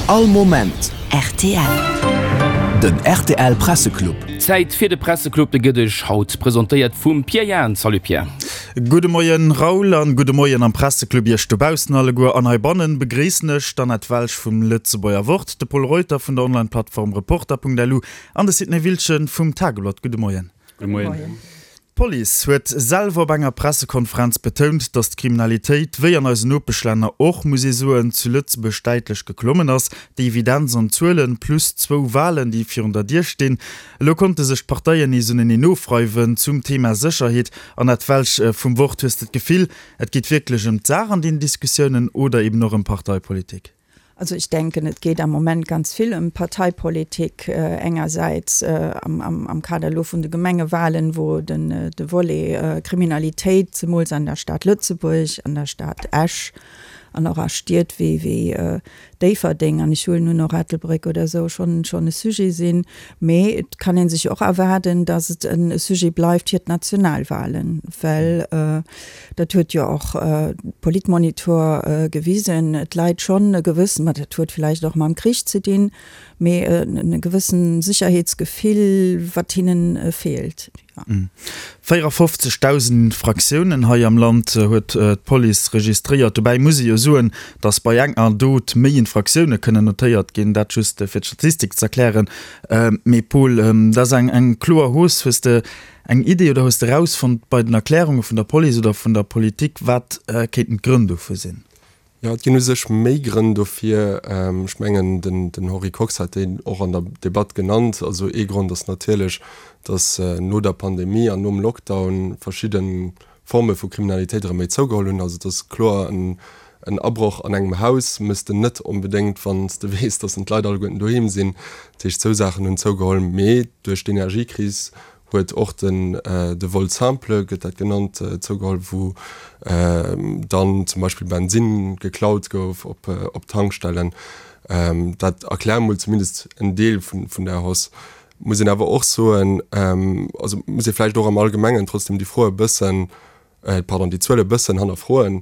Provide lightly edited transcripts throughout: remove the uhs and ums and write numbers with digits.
All Moment rtl. Den rtl Presseclub. Zäit fir de Presseclub, de gëtt Iech haut presentéiert vum Pierre Jahn. Salut Pierre. Gudde Moien Raoul an gudde Moien am Presseclub Iech dobaussen alleguer. An heibannen begréissen ech d'Annette Welsch vum Lëtzebuerger Wort, de Pol Reuter vun der Online-Plattform Reporter.lu an de Sidney Wiltgen vum Tageblatt. Gudde Moien. Gudde Moien. D'Police huet selwer op enger Pressekonferenz betount, datt d'Kriminalitéit, wéi an eisen Nopeschlänner och, muss ee soen, zu Lëtzebuerg däitlech geklommen ass. Déi Evidenz an d'Zuelen, plus zwou Walen, déi virun der Dier stinn. Elo konnte sech d'Parteien nees uneneen ofreiwen zum Thema Sécherheet. Annette Welsch vum Wort, hues de d'Gefill, et geet wierklech ëm d'Saach an deenen Diskussiounen oder eben och ëm Parteipolitik? Also ich denken, et geet am Moment ganz vill ëm Parteipolitik, engersäits am Kader elo vun de Gemengewahlen, wou den de Volet Kriminalitéit, zemools an der Stad Lëtzebuerg, an der Stad Esch an och a Stied wéi wéi Déifferdeng an ech huelen un och Ettelbréck oder esou, schonn schonn e Sujet sinn. Mee et kann ee sech och erwaarden, datt et e Sujet bleift fir d'Nationalwahlen, well Dat huet jo och Politmonitor gewisen. Et läit schonn e gewëssen, ma dat huet villäicht och mam Krich ze dinn, mee e gewëssen Sécherheetsgefill, wat hinnen feelt. 54.000 Infraktiounen hei am Land huet d'Police registréiert. Dobäi muss ee jo soen, datt bei enger Dot méi Infraktioune kënnen notéiert ginn. Dat just fir d'Statistik z'erklären. Mee Paul, dat ass eng kloer Hausse. Hues de Eng Idee oder hues de erausfonnt bei den Erklärunge vun der Police oder vun der Politik, wat kéinten d'Grënn dofir sinn? Jo, et ginn u sech méi Grënn dofir. Ech mengen, den Henri Kox hat déi och an der Debatt genannt. Also ee Grond ass natierlech, datt no der Pandemie an nom Lockdown verschidde Forme vu Kriminalitéit erëm méi zougeholl hunn. Also et ass kloer, en Abroch an engem Haus méchs de net onbedéngt, wann s de weess, datt d'Leit alleguerten doheem sinn. Dat heescht, esou Saachen hunn zougeholl. Mee duerch d'Energiekris huet och den de Vol simple, gëtt dat genannt, zougeholl, wou dann zum Beispill Bensinn geklaut gouf op Tankstellen. Dat erkläert mol zumindest en Deel vun där Hausse. Muss een awer och soen, also muss ee vläicht och am Allgemengen trotzdem déi Fro e bëssen, pardon, déi Zuel e bëssen hannerfroen.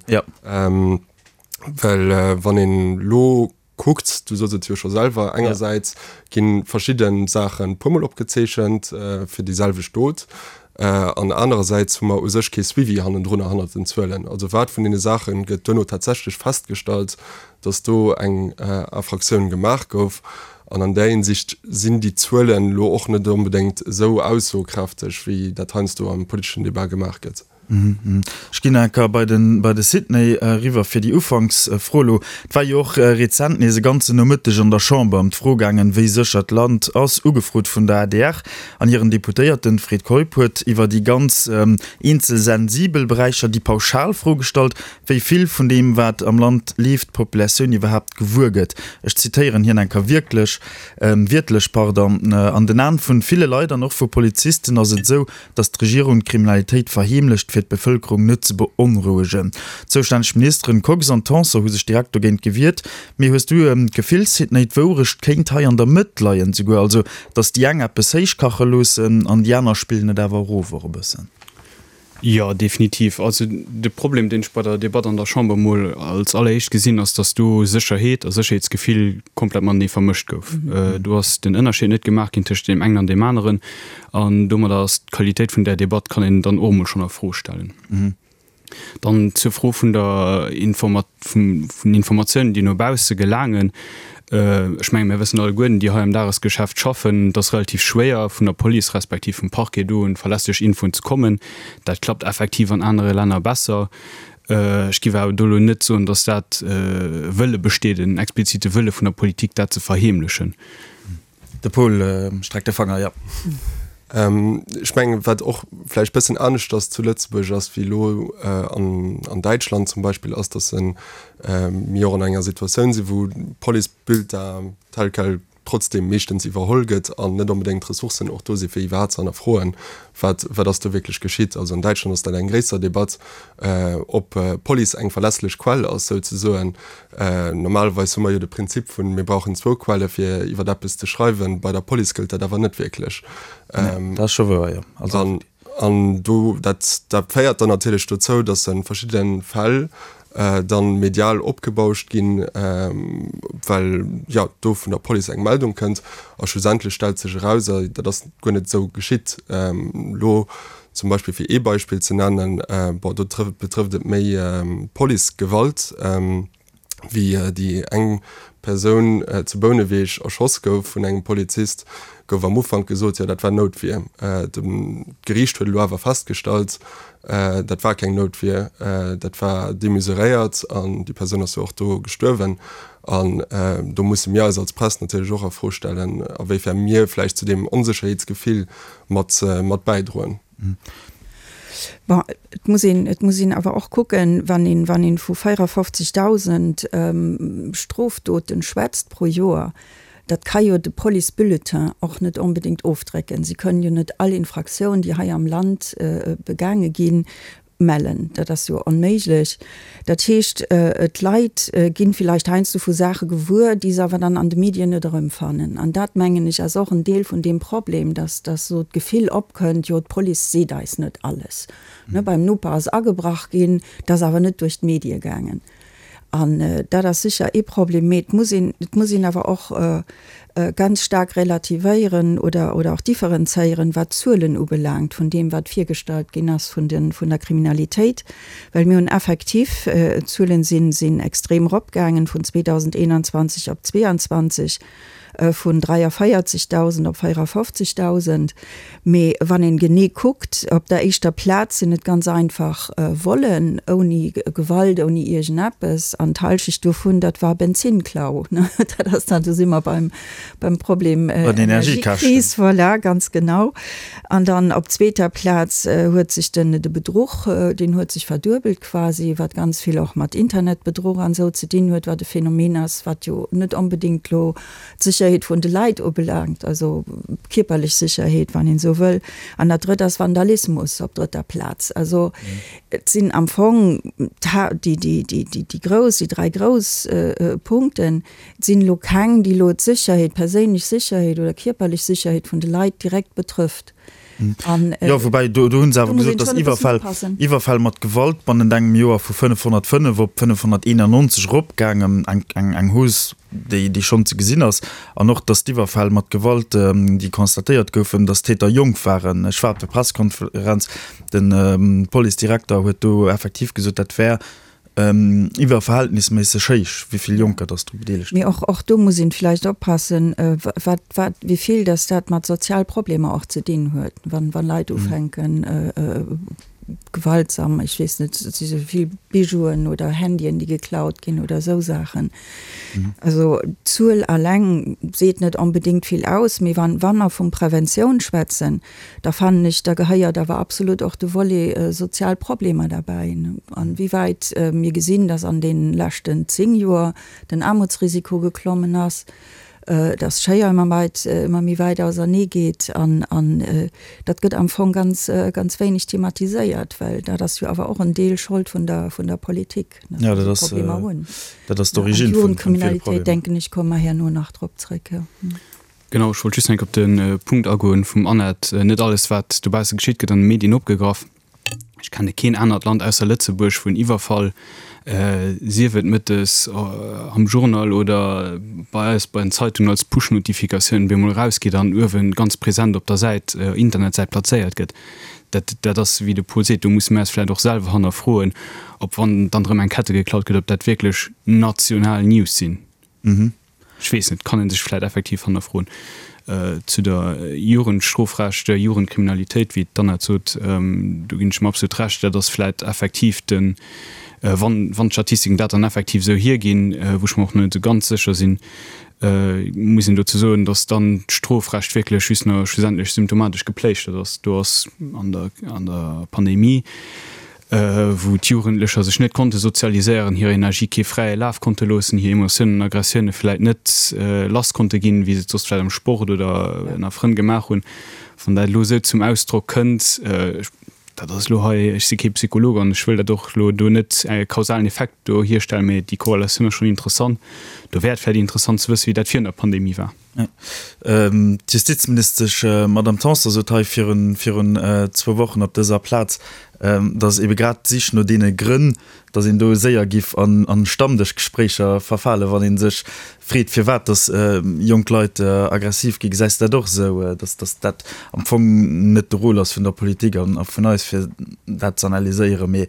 Well wann een elo kuckt, du soss et jo scho selwer, engersäits gi verschidde Saache puermol opgezeechent fir déi selwecht Dot an anerersäits hu mer u sech kee Suivi hannendrunner, hannert den Zuelen. Also wat vun deene Saache gëtt duerno tatsächlech festgestallt, datt do eng Infraktioun gemaach gouf? An an där Hinsicht sinn déi Zuelen elo och net onbedéngt esou aussokräfteg, wéi dat heiansdo am politeschen Debat gemaach gëtt. Ech ginn nach eng Kéier bei den, bei de Sidney eriwwer fir déi Ufanksfro elo. Et war jo och rezent nees e ganzen Nomëtteg an der Chamber ëm d'Fro gaangen, wéi sécher d'Land ass, ugefrot vun der adr an hiren Deputéierten. Fred Keup huet iwwer déi ganz eenzel sensibel Beräicher déi pauschal Fro gestallt, wéi vill vun deem, wat am Land leeft, d'Populatioun iwwerhaapt gewuer gëtt. Ech zitéieren hien eng Kéier wierklech, wiertlech, pardon, An den Aen vun ville Leit an och vu Polizisten ass et esou, datt d'Regierung d'Kriminalitéit verheemlecht, fir d'Bevëlkerung net ze beonrouegen. D'zoustänneg Ministeren Kox an Tanson hu sech direkt dogéint gewiert. Mee hues du d'Gefill, Sidney, d'Wourecht kéint hei an der Mëtt leien souguer, also datt déi eng eppes héichkache loossen an déi aner spillen et awer erof och e bëssen? Jo, definitiv. Also de Problem, deen ech bei der Debatt an der Chamber emol als alleréischt gesinn, ass, datt do Sécherheet a Sécherheetsgefill komplett matenee vermëscht gouf. Do ass den Ënnerscheed net gemaach ginn tëscht deem engen an deem aneren. An domadder ass d'Qualitéit vun där Debatt, kann een dann och emol schonn a Fro stellen. Dann zur Fro vun der Informa vun den Informatiounen, déi no bausse gelaangen. Ech mengen, mir wëssen alleguerten, déi hei am Dagesgeschäft schaffen, et ass relativ schwéier, vun der Police respektiv vum Parquet do un verlässlech Infoen ze kommen. Dat klappt effektiv an anere Länner besser. Ech géif awer do elo net soen, datt dat e Wëlle besteet, en explizite Wëlle vun der Politik, dat ze verheemlechen. De Paul streckt de Fanger, jo. Ech mengen, wat och vläicht bëssen aneschters zu Lëtzebuerg ass wéi elo an Däitschland zum Beispill, ass, datt mir och an enger Situatioun sinn, wou d'Police-Bulletin tel quel trotzdem meeschtens iwwerholl gëtt an net onbedéngt d'Ressourcen och do sinn, fir iwwerhaapt ze hannerfroen, wat wat ass do wierklech geschitt. Also an Däitschland ass dat eng gréisser Debatt, ob d'Police eng verlässlech Quell ass souzesoen. Normalerweis hu mer jo de Prinzip vun, mir brauchen zwou Quelle fir iwwer eppes ze schreiwen. Bei der Police gëllt dat awer net wierklech. Nee, dat ass scho wouer, jo. Also. An do, dat, dat féiert dann natierlech dozou, datt a verschiddene Fäll. Dann medial opgebauscht ginn, well jo do vun der Police eng Meldung kënnt a schlussendlech stellt sech eraus, dat ass guer net esou geschitt. Elo zum Beispill, fir ee Beispill ze nennen, bon do betrëfft et méi Policegewalt, wéi déi eng Persoun zu Bouneweg erschoss gouf vun engem Polizist, gouf am Ufank gesot, jo dat war Noutwier. D'Geriicht huet elo awer festgestallt, dat war keng Noutwier, dat war demesuréiert an déi Persoun ass jo och do gestuerwen. An do musse mir eis als Press natierlech och a Fro stellen, a wéifern mir vläicht zu deem Onsécherheetsgefill mat bäidroen. Bon, et muss een, et muss een awer och kucken, wann een, wann een vu 54.000 Strofdoten schwätzt pro Joer, dat ka jo de Policebulletin och net onbedéngt ofdrécken. Si kënnen jo net all Infraktioun, déi hei am Land begaange ginn, mellen. Dat ass jo onméiglech. Dat heescht, d'Leit ginn villäicht heiansdo vu Saache gewuer, déi se awer dann an de Medien net erëmfannen. An dat, mengen ech, ass och en Deel vun deem Problem, dass, dass esou d'Gefill opkënnt, jo, d'Police seet eis net alles. Ne, beim Noper ass agebrach ginn, dat ass awer net duerch d'Medie gaangen. An dat ass sécher ee Problem. Mee et muss een, et muss een awer och ganz staark relativéieren oder, oder och differenzéieren, wat d'Zuelen ubelaangt vun deem, wat virgestallt ginn ass vun de, vun der Kriminalitéit. Well mir hunn effektiv, d'Zuelen sinn, sinn extrem eropgaangen vun 2021 op 2022. Vun 43.000 op 54.000. Mee wann een genee kuckt, op der éischter Plaz sinn et ganz einfach Vollen, ouni Gewalt, ouni iergendeppes. An d'Halschecht dovun, dat war Benzinnklau. Dat ass dann, do si mer beim, beim Problem Energiekris, voilà, ganz genau. An dann op zweeter Plaz huet sech den, de Bedruch, deen huet sech verduebelt quasi, wat ganz vill och mat Internetbedruch an esou ze dinn huet, wat e Phänomen ass, wat jo net onbedéngt elo d'Sécherheet vun de Leit ubelaangt, also kierperlech Sécherheet, wann een esou wëll. An dat Drëtt ass Vandalismus op drëtter Plaz. Also et sinn am Fong déi, déi, déi, déi grouss, déi dräi grouss Punkten. Et sinn elo keng, déi elo d'Sécherheet, d'perséinlech Sécherheet oder kierperlech Sécherheet vun de Leit direkt betrëfft. An, jo, woubäi do, do hunn se awer gesot, datt Iwwerfäll, Iwwerfäll mat Gewalt bannent engem Joer vu 505 op 591 eropgaangen, eng, eng, eng Hausse, déi, déi schonn ze gesinn ass. An och, datt d'Iwwerfäll mat Gewalt, déi constatéiert goufen, datt d'Täter jonk waren. Ech war op der Pressekonferenz, de Policedirekter huet do effektiv gesot, dat wär Iwwerverhältnisméisseg héich, wéi vill Jonker dass dru bedeelegt Mee och, och do muss een vläicht oppassen, wat, wat, wéi vill dass dat mat Sozialproblemer och ze dinn huet, wann, wann Leit ufänken, gewaltsam, ech weess net, et si sou vill Bijouen oder Handyen, déi geklaut ginn oder esou Saachen. Also d'Zuel alleng seet net onbedéngt vill aus, mee wann, wa mer vun Preventioun schwätzen, Da fannen ech, da gehéiert awer absolut och de Volet sozial Problemer derbäi. An wéi wäit mir gesinn, dass an deene leschten 10 Joer den Aarmutsrisiko geklommen ass, dass d'Schéier ëmmer weit, ëmmer méi wäit ausernee geet an dat gëtt am Fong ganz, ganz wéineg thematiséiert, well dat ass jo awer och en Deel Schold vun der, vun der Politik, dass mer déi Problemer hunn. Dat ass d'Origine vun ville Problemer. Jugendkriminalitéit, denken ech, komme mer herno nach drop zréck. Genau, ech wollt just enk op de Punkt agoen vum Annette. Net alles, wat dobausse geschitt, gëtt an de Medien opgegraff. Ech kenne keen anert Land ausser Lëtzebuerg, wou en Iwwerfall, sief et mëttes am Journal oder bei eis bei den Zeitungen als Push-Notifikatioun, bemol erausgeet an uewe ganz present op der Säit, Internetsäit plazéiert gëtt. Dat, dat ass, wéi de Paul seet, do musse mir eis vläicht och selwer hannerfroen, ob, wann dann erëm eng Kette geklaut gëtt, ob dat wierklech national News sinn. Ech weess net, kann ee sech vläit effektiv hannerfroen. Zu der Jugendstrofrecht, Jugendkriminalitéit, wéi d'Annette sot, do ginn ech em absolut Recht, dat ass vläit effektiv den, wann, wann d'Statistiken dat dann effektiv esou hierginn, wou ech mer och net esou ganz sécher sinn, muss een dozou soen, datt dann d'Strofrecht wierklech just nach schlussendlech symptomatesch gepléischtert ass. Do ass an der, an der Pandemie, wou d'Jugendlecher sech net konnte sozialiséieren, hir Energie kee fräie Laf konnte loossen, hir Emotiounen an Aggressioune vläit net lass konnte ginn, wéi se et soss vläit am Sport oder ënner Frënn gemaach hunn. Wann dat elo esou zum Ausdrock kënnt, dat ass elo hei, ech si kee Psycholog an ech wëll dat och elo do net e kausalen Effekt do hierstellen, mee déi Korrelatioun ass schonn interessant. Do wär et vläit interessant ze wëssen, wéi dat virun der Pandemie war. D'Justizministesch Madamm Tanson sot hei virun zwou Wochen op dëser Plaz. Datt ebe grad d'Sich no deene Grënn, datt een do séier giff an Stammdëschgespréicher verfalen, wann ee sech freet, firwat datt jonk Leit aggressiv ginn. Gesäis de dat och esou, datt datt dat am Fong net de Rôle ass vun der Politik an vun eis, fir dat ze analyséieren, mee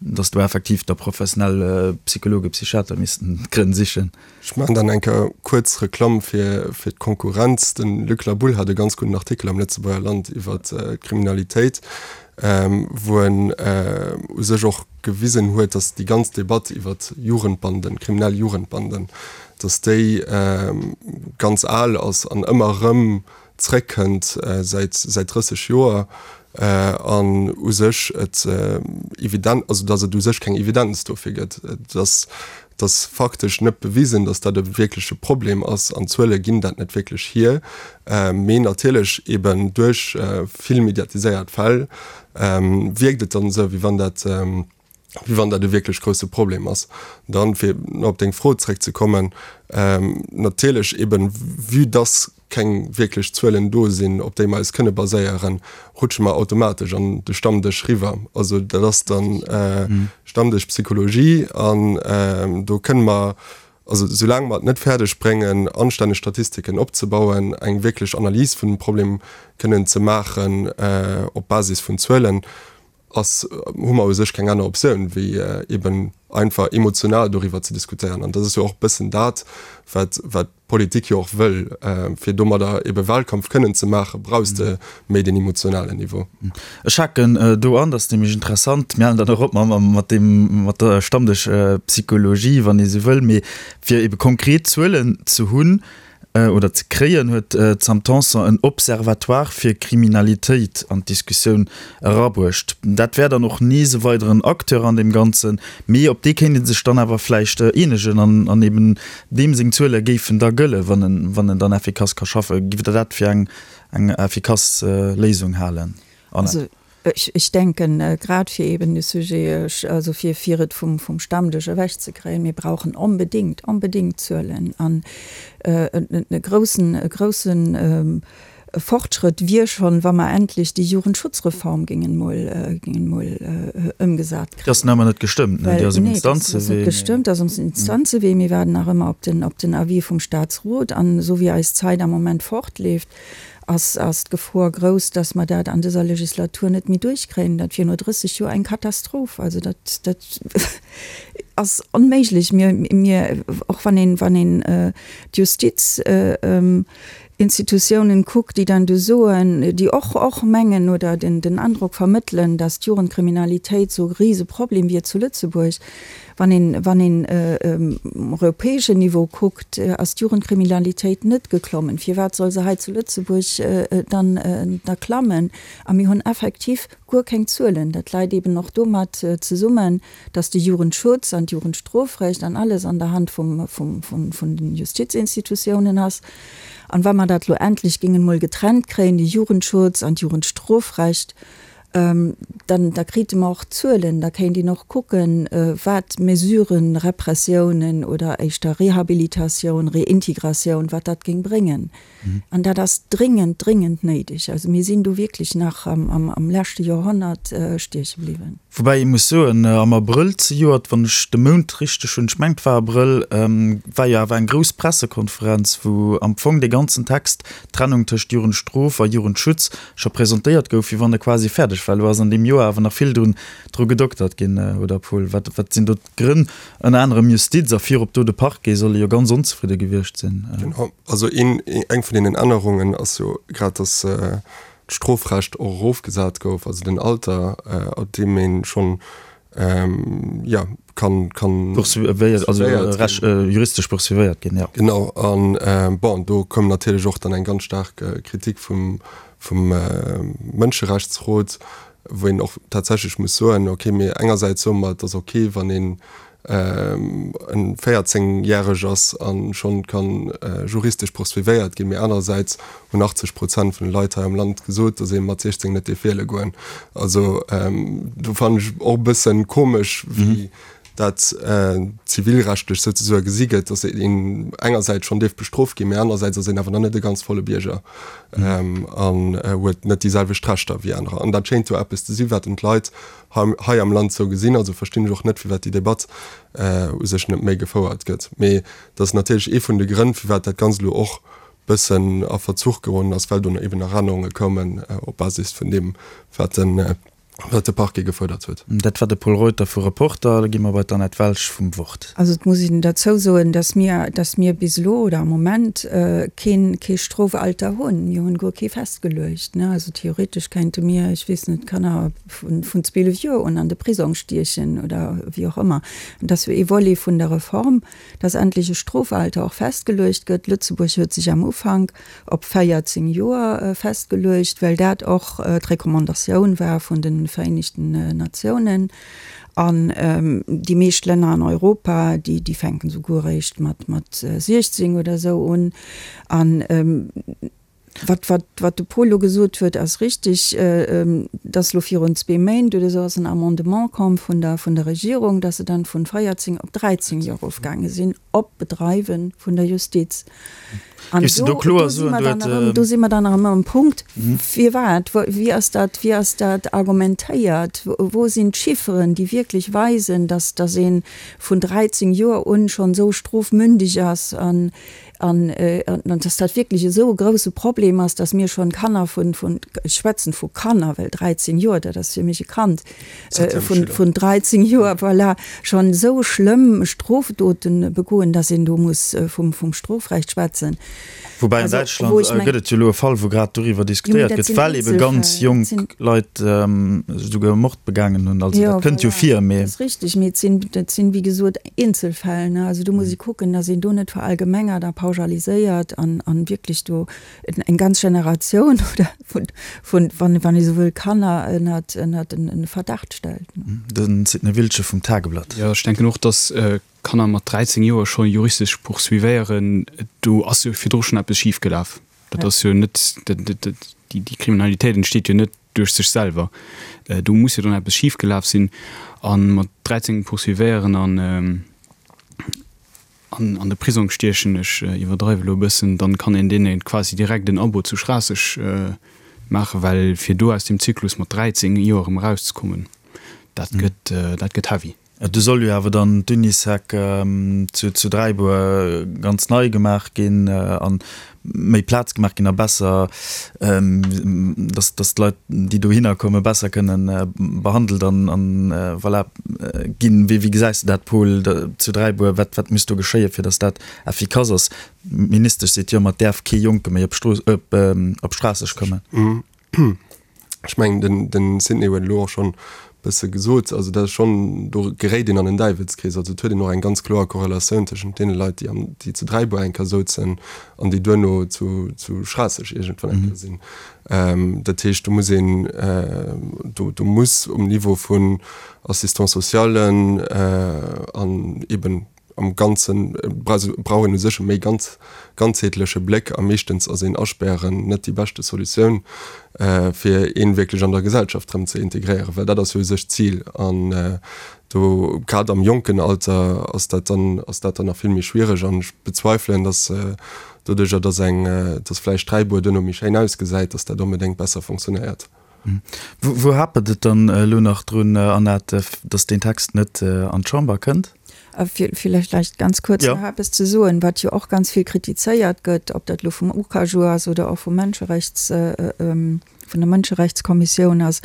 datt do effektiv da professionell Psychologen, Psychiater missten d'Grënn sichen? Ech maachen dann eng Kéier kuerz Reklamm fir fir d'Konkurrenz. De Luc Laboulle hat e ganz gudden Artikel am Lëtzebuerger Land iwwer d'Kriminalitéit, wou en u sech och gewisen huet, datt déi ganz Debatt iwwer Jugendbanden, kriminell Jugendbanden, datt déi ganz al ass an ëmmer erëm zréckkënnt säit säit 30 Joer an u sech et evident, also datt et u sech keng Evidenz dofir gëtt. Et ass, et ass faktesch net bewisen, datt dat e wierkleche Problem ass an d'Zuele ginn dat net wierklech hier. Mee natierlech eben duerch vill mediatiséiert Fäll wierkt et dann esou, wéi wann dat, wéi wann dat e wierklech grousse Problem ass. Dann, fir nach op deng Fro zréckzekommen, natierlech eben, vue dass keng wierklech Zuelen do sinn, op déi mer eis kënne baséieren, rutsche mer automatesch an de Stammdësch riwwer. Also dat ass dann Stammdëschpsychologie an do kënne mer, also soulaang mer et net fäerdeg bréngen, anstänneg Statistiken opzebauen, eng wierklech Analys vun dem Problem kënnen ze maachen op Basis vun Zuelen, ass, hu mer u sech keng aner Optioun, wéi eben einfach emotional doriwwer ze diskutéieren. An dat ass jo och e bëssen dat, wat, wat d'Politik jo och wëll. Fir domadder ebe Wahlkampf kënnen ze maachen, brauchs de méi deen emotionalen Niveau. Ech haken do an, dat ass nämlech interessant, mir halen dann och op mat deem, mat der Stammdëschpsychologie, wann ee sou wëll, mee fir ebe konkret Zuelen ze hunn, oder ze kréien, huet d'Sam Tanson en Observatoire fir Kriminalitéit an d'Diskussioun erabruecht. Dat wär dann och nees e weideren Acteur an deem Ganzen, mee op dee kéint ee sech dann awer vläicht eenegen an an eben deem seng Zuele géifen da gëllen, wann en wann en dann effikass ka schaffen. Giff Der dat fir eng eng effikass Léisung halen, Annette? Ech denken, grad fir eben de Sujet, also fir, fir et vum, vum Stammdësch ewechzekréien, mir brauchen onbedéngt, onbedéngt Zuelen. An e groussen, e grousse Fortschrëtt wier schonn, wa mer endlech déi Jugendschutzreform géingen emol, géingen emol ëmgesat kréien. Déi ass nach ëmmer net gestëmmt, ne? Déi ass um Instanzewee. Nee, déi ass net gestëmmt, déi ass um Instanzewee. Mir waarden nach ëmmer op den, op den Avis vum Statsrot. An esou wéi eis Zäit am Moment fortleeft, ass ass d'Gefor grouss, dass mer dat an dëser Legislatur net méi duerchkréien. Dat wier no 30 Joer eng Katastroph. Also dat dat ass onméiglech. Mir mir och wann een wann een d'Justiz Institutiounen kuckt, déi dann do soen, déi och och mengen oder den den Androck vermëttelen, dass d'Jugendkriminalitéit sou e Riseproblem wier zu Lëtzebuerg, Wann een, wann een um europäeschen Niveau kuckt, ass d'Jugendkriminalitéit net geklommen. Firwat soll se hei zu Lëtzebuerg dann da klammen? A mir hunn effektiv guer keng Zuelen. Dat läit eeben och domat zesummen, dass de Jugendschutz an d'Jugendstrofrecht an alles an der Hand vum, vum, vun, vun den Justizinstitutiounen ass. An wa mer dat elo endlech géingen emol getrennt kréien, de Jugendschutz an d'Jugendstrofrecht, Dann, da krite mer och Zuelen, da kéint een och kucken, wat Mesuren, Repressiounen oder éischter Rehabilitatioun, Reintegratioun, wat dat géing bréngen. An dat ass dringend, dringend néideg. Also mir sinn do wierklech nach am leschte Joerhonnert stieche bliwwen. Woubäi ee muss soen, am Abrëll zejoert, wann ech de Mount richteg hunn, ech mengen et war Abrëll, war jo awer eng grouss Pressekonferenz, wou am Fong dee ganzen Text, d'Trennung tëscht Jugendstrof a Jugendschutz, scho presentéiert gouf, wéi wann e quasi fäerdeg war. Elo ass an deem Joer awer nach vill drun dru gedoktert ginn, oder Paul? Wat wat sinn do d'Grënn? Ënner anerem Justiz a virop do de Parquet solle jo ganz onzefridde gewiescht sinn. Genau, also een eng vun deenen Ännerungen ass jo grad, datt d'Strofrecht och erofgesat gouf, also den Alter, ab deem ee schonn ja, kann, kann poursuivéiert, also recht, juristesch poursuivéiert ginn, ja. Genau, an bon, do koum natierlech och dann eng ganz staark Kritik vum, vum Mënscherechtsrot, wou een och tatsächlech muss soen, okay, mir engersäits soe mer, et ass okay, wann een en 14 järeg ass a schonn kann juristesch poursuivéiert ginn, mee anerersäits hunn 80 Prozent vun de Leit hei am Land gesot, datt ee mat 16 net dierf wiele goen. Also do fannen ech och e bëssen komesch, wéi. Dat zivilrechtlech souzesoe gesi gëtt, datt een engersäits schonn dierf bestrooft ginn, mä anerersäits ass een awer nach net e ganz volle Bierger an huet net déi selwecht Rechter wéi anerer. An dat schéint jo eppes ze sinn, wat en d'Leit hei am Land sou gesinn. Also verstinn ech och net, firwat déi Debatt u sech net méi gefouert gëtt. Mee dat ass natierlech ee vun de Grënn, firwat dat Ganzt elo och bëssen a Verzuch geroden ass, well do eben nach Ännerunge koumen op Basis vun deem, wat den wat de Parquet gefuerdert huet. Dat war de Pol Reuter vu Reporter. Da gi mer bei d'Annette Welsch vum Wort. Also et muss een derzou soen, dass mir, dass mir bis elo oder am Moment keen, kee Strofalter hunn. Mir hunn guer kee festgeluecht, ne. Also theoretesch kéinte mir, ech weess net, Kanner vun, vun 12 Joer un an de Prisong stiechen oder wéi och ëmmer. An dat ass jo ee Volet vun der Reform, dass endlech e Strofalter och festgeluecht gëtt. Lëtzebuerg huet sech am Ufank op 14 Joer festgeluecht, well dat och d'Recommandatioun war vun de Vereenegten Natiounen. An déi meescht Länner an Europa, déi, déi fänken souguer eréischt mat, mat 16 oder esou un. An wat, wat, wat de Paul elo gesot huet, ass richtig, dass elo virun zwee Méint oder esou ass en Amendement komm vun der, vun der Regierung, dass se dann vun 14 op 13 Joer erofgaange sinn, op Bedreiwe vun der Justiz. An Géifs de do, do kloer do si soen, mer du dann huet. erëm, do si mer dann erëm am Punkt, firwat, wou, wéi ass dat, wéi ass dat argumentéiert, wou sinn d'Chifferen, déi wierklech weisen, dass, dass ee vun 13 Joer un schonn esou strofmündig ass an, an, an dass dat wierklech esou e grouse Problem ass, dass mir schonn Kanner vun, vun, ech schwätzen vu Kanner, well 13 Joer, dat ass fir mech e Kand, vun 13 Joer, voilà, schonn esou schlëmm Strofdoten begoen, dass een do muss vum Strofrecht schwätzen. Woubäi an Däitschland gëtt et jo elo e Fall, wou grad doriwwer diskutéiert gëtt, well ebe ganz jonk Leit esouguer Mord begaangen hunn. Also dat kënnt jo vir, mee. Dat ass richteg, mee et sinn, dat sinn, wéi gesot, Eenzelfäll. Also do muss ee kucken, dass een do net verallgemengert a pauschaliséiert an wierklech do eng ganz Generatioun oder vun, vun, wann, wann ee sou wëll, Kanner ënnert, ënnert en Verdacht stellt. De Sidney Wiltgen vum Tageblatt. Jo, ech denken och, datt Kanner mat 13 Joer scho juristesch poursuivéieren, do ass jo virdru schonn eppes schif gelaf. Dat ass jo net, déi Kriminalitéit entsteet jo net duerch sech selwer. Do muss jo dann eppes schif gelaf sinn. A mat 13 poursuivéieren an. An an de Prisong stiechen, ech iwwerdreiwe lo e bëssen, dann kann een deene quasi direkt en Abo zu Schraasseg maachen, well fir do aus deem Zyklus mat 13 Joer erëm erauszekommen, dat gëtt, dat gëtt heavy. Do soll jo awer dann d'Unisec zu Dräibuer ganz nei gemaach ginn an méi Plaz gemaach ginn a besser, dass dass d'Leit, déi dohinner kommen, besser kënnen behandelt an an voilà ginn. Wéi wéi gesäis de dat, Paul, zu Dräibuer? Wat wat muss do geschéien, fir dass dat effikass ass? D'Ministesch seet jo ëmmer, et däerf kee Jonke méi op Strooss op op Schraasseg kommen. Ech mengen, den, den Sidney huet elo och schonn e bësse gesot, also dat ass schonn, do geréit een an en Däiwelskrees. Also et huet een och eng ganz kloer Korrelatioun tëschent deene Leit, déi am, déi zu Dräibuer eng Kéier souzen an déi duerno zu, zu Schraasseg iergendwann eng Kéier sinn. Dat heescht, do muss een, do, do muss um Niveau vun Assistant-socialen an eeben, Am Ganze brauch een u sech e méi ganzheetleche Bléck a meeschtens ass een Aspären net déi beschte Solutioun, fir een wierklech an der Gesellschaft erëm ze integréieren, well dat ass jo u sech d'Zil. An do, grad am jonken Alter, ass dat dann, ass dat dann nach vill méi schwiereg. An ech bezweifelen, datt doduerjer, datt eng, datt vläicht Dräibuer duerno méi schéin ausgesäit, datt dat onbedéngt besser fonctionnéiert. Wou hapert et dann elo nach drun, Annette, datt deen Text net an d'Chamber kënnt? Villäicht leicht ganz kuerz nach eppes ze soen, wat jo och ganz vill kritizéiert gëtt, ob dat elo vum UCAJU ass oder och vum Mënscherechts, vun der Mënscherechtskommissioun ass,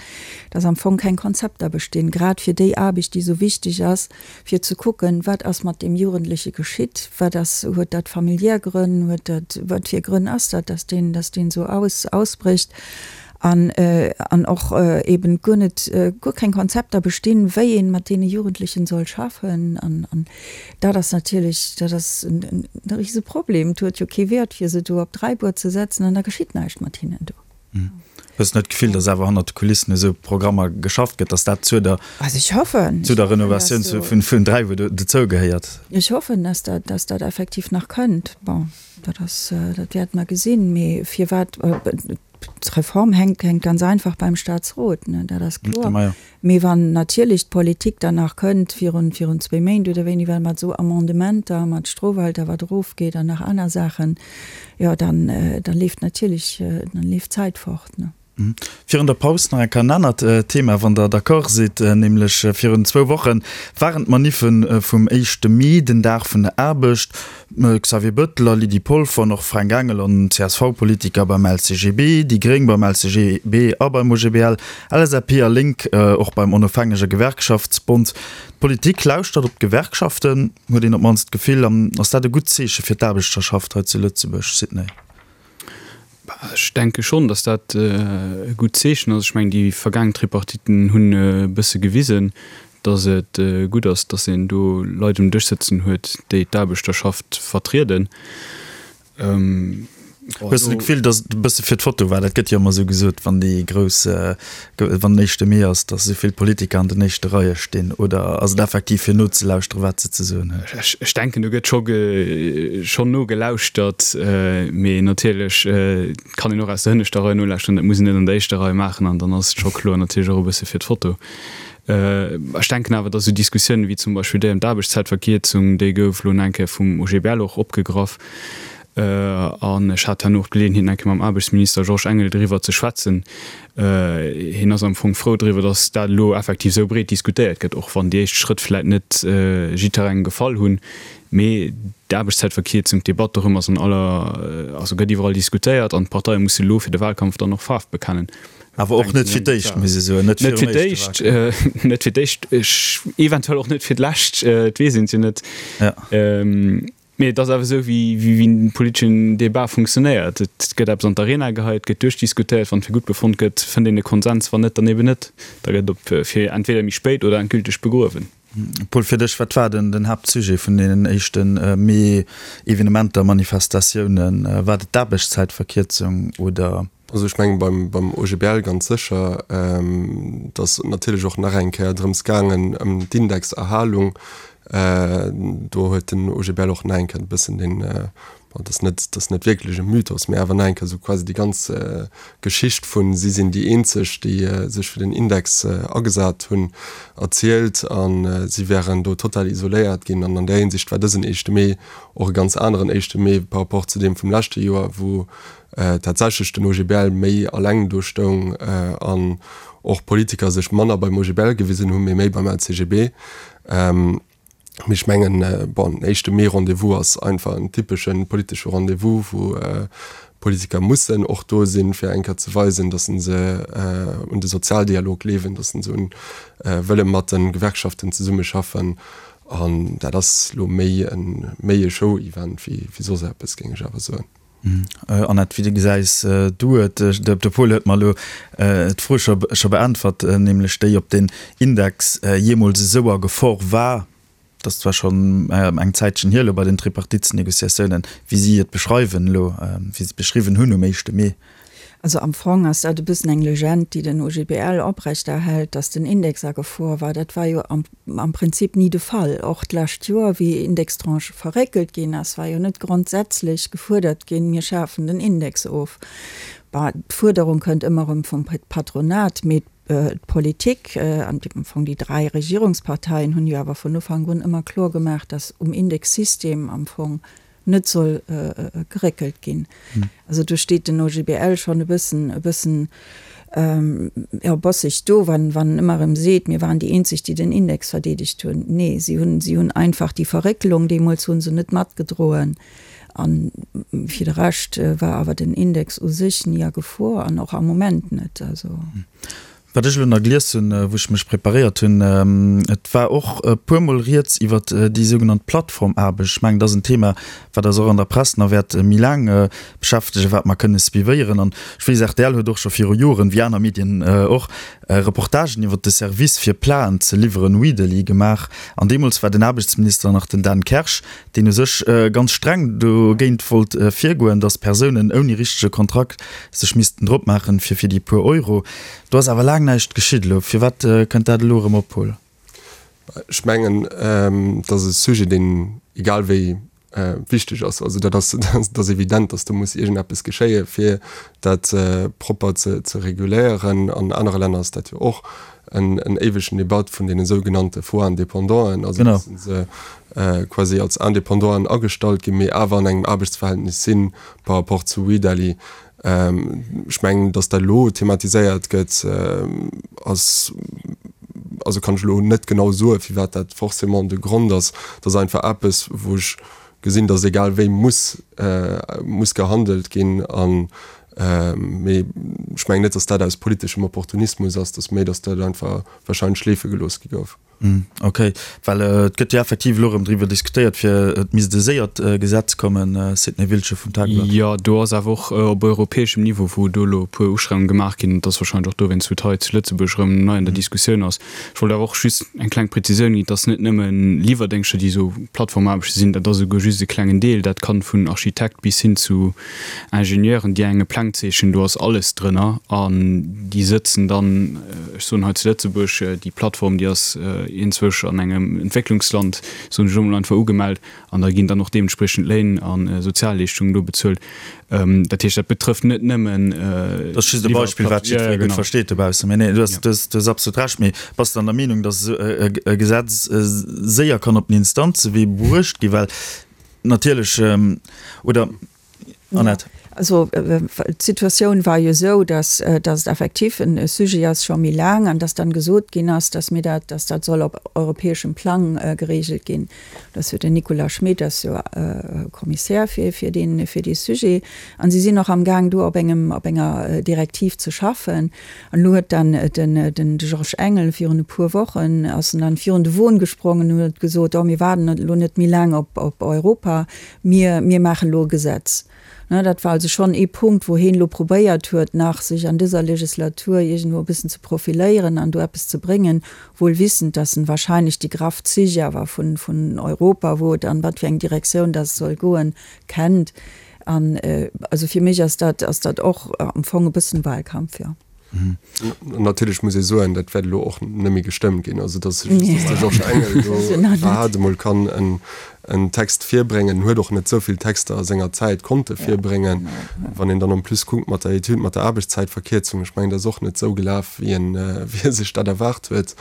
dass am Fong keng Konzepter bestinn, grad fir déi Aarbecht, déi esou wichteg ass, fir ze kucken, wat ass mat deem Jugendleche geschitt, wat ass, huet dat familiär Grënn, huet dat, wat fir Grënn ass dat, dass deen, dass deen esou aus, ausbrécht. An, an och eben guer net, guer keng Konzepter bestinn, wéi ee mat deene Jugendlechen soll schaffen. An, an dat ass natierlech, dat ass en rise Problem. Et huet jo kee Wäert, fir se do op Dräibuer ze setzen an da geschitt näischt mat hinnen do. Hues de net d'Gefill, datt awer hannert de Kulissen u sou Programmer geschafft gëtt, datt dat zur der, Also ech hoffen, zu der Renovatioun vun Dräibuer dozou gehéiert? Ech hoffen, datt dat, datt dat effektiv nach kënnt. Bon, dat ass, dat wäerte mer gesinn. Mee firwat? D'Reform hänkt hänkt ganz einfach beim Staatsrot, ne, dat ass kloer. Mee wann natierlech d'Politik dann nach kënnt virun virun zwéi Méint oder wéini war mat esou Amendementer, mat Strofalter wat erofgeet an nach aner Saachen, jo dann da leeft natierlech, dann leeft d'Zäit fort, ne. Virun der Paus nach eng Kéier en anert Thema, wann Der d'accord sidd, nämlech virun zwou Woche waren d'Maniffe vum éischte Mee, den Dag vun der Aarbecht. Xavier Bettel a Lydie Polfer an och Fränk Engel an CSV-Politiker beim LCGB, déi Gréng beim LCGB a beim OGBL, LSAP a Lénk och beim Onofhängege Gewerkschaftsbond. D'Politik lauschtert op d'Gewerkschaften, huet een op d'mannst d'Gefill. An ass dat e gutt Zeeche fir d'Aarbechterschaft hei zu Lëtzebuerg, Sidney? Ech denke schonn, datt dat e gutt Zeechen ass. Ech mengen, déi vergaangen Tripartiten hunn e bësse gewisen, datt et gutt ass, datt een do Leit um Dësch sëtzen huet, déi d'Aarbechterschaft vertrieden. Hues de d'Gefill, datt et e bësse fir d'Foto war? Dat gëtt jo ëmmer esou gesot, wann déi grouss, wann den éischte Mee ass, datt esou vill Politiker an den éischte Reie stinn. Oder ass et effektiv fir nozelauschteren, wat se ze soen hunn? Ech denken, do gëtt scho schonn nogelauschtert, mee natierlech kann een och aus der hënneschter Rei nolauschteren. Dat muss een net an der éischter Rei maachen an dann ass et scho kloer natierlech och e bësse fir d'Foto. Ech denken awer, datt esou Diskussiounen wéi zum Beispill déi ëm d'Aarbechtszäitverkierzung, déi gouf elo nach eng Kéier vum OGBL och opgegraff, An ech hat herno och d'Geleeënheet, nach eng Kéier mam Aarbechtsminister Georges Engel driwwer ze schwätzen. Hien ass am Fong frou driwwer, datt dat elo effektiv esou breet diskutéiert gëtt, och wann déi éischt Schrëtt vläit net jidderengem gefall hunn. Mee d'Aarbechtszäitverkierzung, d'Debatt dorëm ass an aller, also gëtt iwwerall diskutéiert an d'Parteie musse elo fir de Wahlkampf dann och Faarf bekennen. Awer och net fir d'éischt, muss ee soen. Net fir d'éischt, net fir d'éischt, eventuell och net fir d'lescht, et weess een et jo net. Mee et ass awer esou, wéi en politeschen Debat funktionéiert. Et gëtt eppes an d'Arena geheit, et gëtt duerchdiskutéiert. Wann et fir gutt befonnt gëtt, fënnt een e Konsens, wann net, dann eben net. Da gëtt op fir entweder méi spéit oder endgülteg begruewen. Paul, fir dech, wat war den den Haaptsujet vun deenen éischte Mee-Evenementer, Manifestatiounen? War et d'Aarbechtszäitverkierzung oder? Also ech mengen beim, beim OGBL ganz sécher. Et ass natierlech och nach eng Kéier drëms gaangen, ëm d'Indexerhalung. Do huet den OGBL och nach eng Kéier e bëssen den, bon, dat ass net, dat ass net wierklech e Mythos, mä awer nach eng Kéier esou quasi déi ganz Geschicht vun si sinn déi eenzeg, déi sech fir den Index agesat hunn, erzielt. A si wären do total isoléiert ginn. An an där Hinsicht war dësen éischte Mee och e ganz aneren éischte Mee par rapport zu deem vum leschte Joer, wou tatsächlech den OGBL méi alleng do stoung an och Politiker sech manner beim OGBL gewisen hunn, mee méi beim LCGB. Mee ech mengen, bon, den éischte Mee-Rendez-vous ass einfach en typesche politesche Rendez-vous, wou Politiker mussen och do sinn, fir eng Kéier ze weisen, datt se un de Sozialdialog gleewen, datt se un wëlle mat de Gewerkschaften zesummeschaffen. An dat ass elo méi e Show-Event wéi soss eppes, géing ech awer soen. Annette, wéi gesäis du et? De Paul huet mer elo d'Fro scho beäntwert, nämlech déi, ob den Index jeemools esou a Gefor war. Dat ass zwar schonn eng Zäitchen hier elo bei den Tripartitsnegociatiounen, wéi si et beschreiwen elo, wéi se et beschriwwen hunn um éischte Mee. Also am Fong ass dat e bëssen eng Legend, déi den OGBL oprechterhält, datt den Index a Gefor war. Dat war jo am am Prinzip ni de Fall. Och d'lescht Joer, wéi Indextranche verréckelt ginn ass, war jo net grondsätzlech gefuerdert ginn, mir schafen den Index of. Bon, d'Fuerderung kënnt ëmmer erëm vum Patronat, mee d'Politik an am Fong déi 3 Regierungsparteien hunn jo awer vun Ufank un ëmmer kloer gemaach, datt um Indexsystem am Fong net soll geréckelt ginn. Also do steet den OGBL schonn e bëssen, e bëssen, jo, bosseg do, wann, wann en ëmmer erëm seet, mir waren déi eenzeg, déi den Index verdeedegt hunn. Nee, si hunn, si hunn einfach déi Verréckelung deemools hu se net matgedroen. A fir de Rescht war awer den Index u sech ni a Gefor an och am Moment net. Also. Wat ech elo nach gelies hunn, wou ech mech preparéiert hunn, et war och e puermol rieds iwwert déi sougenannt Plattformaarbecht. Ech mengen, dat ass en Thema, wat eis och an der Press nach wäert méi laang beschäftegen, wat mer kënne suivéieren. An ech weess, rtl huet och scho viru Joren, wéi aner Medien och, Reportagen iwwert de Service fir Platen ze liwweren, Weedely, gemaach. An deemools war den Aarbechtsminister nach den Dan Kersch, deen u sech ganz streng dogéint wollt virgoen, datt Persounen ouni richtege Kontrakt sech missten drop maachen, fir fir déi puer Euro. Do ass awer laang näischt geschitt elo. Firwat kënnt dat elo erëm op, Paul? Ech mengen, et ass e Sujet, deen egal wéi. wichteg ass. Also dat ass, dat ass evident, datt do muss iergendeppes geschéie fir dat propper ze ze reguléieren. An anere Länner ass dat jo och en en éiwegen Debatt vun deene sougenannte faux Indépendanten, also datt se quasi als Indépendanten agestallt ginn, mee awer an engem Aarbechtsverhältnis si par rapport zu Wedely. Ech mengen, datt dat elo thematiséiert gëtt, ass, also kann ech elo net genau soen, firwat dat forcément de Grond ass. Dat ass einfach eppes, wou ech gesinn, datt egal wéi muss, muss gehandelt ginn. An, mee ech mengen net, datt dat aus politeschem Opportunismus ass, datt méi, datt dat einfach wahrscheinlech schleefe gelooss gi gouf. Ok, well et gëtt jo effektiv elo erëm driwwer diskutéiert, fir et misst e séiert Gesetz kommen, Sidney Wiltgen vum Tagblatt. Jo, do ass awer och op europäeschem Niveau, wou do elo e puer Ustrengungen gemaach ginn. Et ass wahrscheinlech och dowéinst, wou et hei zu Lëtzebuerg erëm nei an der Diskussioun ass. Ech wollt awer och just eng kleng Prezisioun ginn, Et ass net nëmme Liwwerdéngschter, déi esou Plattformaarbechte sinn, dat ass esouguer just e klengen Deel. Dat kann vun Architekt bis hin zu Ingenieuren, déi enge Pläng zeechnen, do ass alles drënner an déi sëtzen dann, ech soen hei zu Lëtzebuerg, déi Plattform, déi ass iergendzwousch an engem Entwécklungsland, soen ech elo mol einfach, ugemellt an da ginn dann och deementspriechend Léin a Sozialleeschtungen do bezuelt. Dat heescht, dat betrëfft net nëmmen. Dat ass just e Beispill, wat jiddweree gutt versteet dobaussen. Mee nee, du hues absolut Recht. Mee bass de dann der Meenung, datt esou e Gesetz séier kann op den Instanzewee bruecht ginn? Well natierlech, oder Annette? Also d'Situatioun war jo esou, datt datt et effektiv e Sujet ass scho méi laang an datt dann gesot ginn ass, datt mir dat, datt dat soll op europäeschem Plang geregelt ginn. Dat ass jo den Nicolas Schmit ass jo Kommissär fir fir dee fir dee Sujet an si sinn och amgaang do op engem op enger Direktiv ze schaffen. An elo huet dann den den Georges Engel virun e puer Wochen ass en dann virun de Won gesprongen an huet gesot, oh mir waarden elo net méi laang op op Europa, Mir, mir maachen elo e Gesetz. Ne, dat war also schonn ee Punkt, wou heen elo probéiert huet, nach sech an dëser Legislatur iergendwou e bëssen ze profiléieren an do eppes ze bréngen, wuel wissend, dass en wahrscheinlech déi graff Zich awer vun, vun Europa, wou et an wat fir eng Direktioun dass et soll goen, kennt. An also fir mech ass dat, ass dat och am Fong e bëssen Wahlkampf, jo. Natierlech muss ee soen, dat wäert elo och net méi gestëmmt ginn. Also datt just de Georges Engel do iwwerhaapt emol kann en Text virbréngen. En huet och net esou vill Texter a senger Zäit konnte virbréngen. Wann een dann en plus kuckt mat der Etüd mat der Aarbechtszäitverkierzung, ech mengen, dat ass och net esou gelaf, wéi en, wéi e sech dat erwaart huet,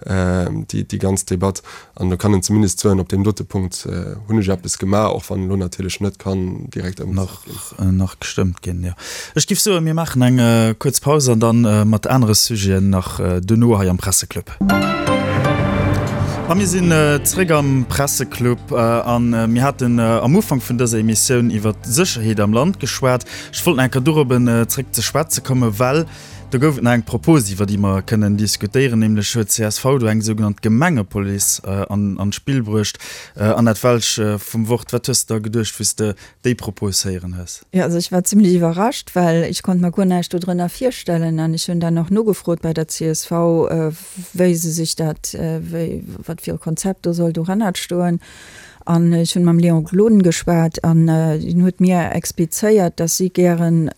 déi, déi ganz Debatt. An do kann en zumindest soen, op deem dote Punkt hunn ech eppes gemaach, och wann elo natierlech net kann direkt ëmgesat ginn. Nach gestëmmt ginn, jo. Ech giff soen, mir maachen eng kuerz Paus an dann mat anere Sujeten nach duerno hei am Presseclub. A mir sinn zréck am Presseclub a mir haten am Ufank vun dëser Emissioun iwwert d'Sécherheet am Land geschwat. Ech wollt nach eng Kéier dorobben zréck ze schwätze kommen, well Do gouf et nach eng Propos, iwwer déi mer kënnen diskutéieren, nämlech huet csv do eng sougenannt Gemengepolice an d'Spill bruecht. Annette Welsch vum Wort, wat hues de da geduecht, wéi s de déi Propos héieren hues? Jo, also ech war zimlech iwwerrascht, well ech konnt mer guer näischt dodrënner virstellen. An ech hunn dann och nogefrot bei der csv, wéi se sech dat, wéi, wat fir e Konzept do soll dohannert stoen. An ech hunn mam Léon Gloden geschwat an deen huet mir explizéiert, dass si gären,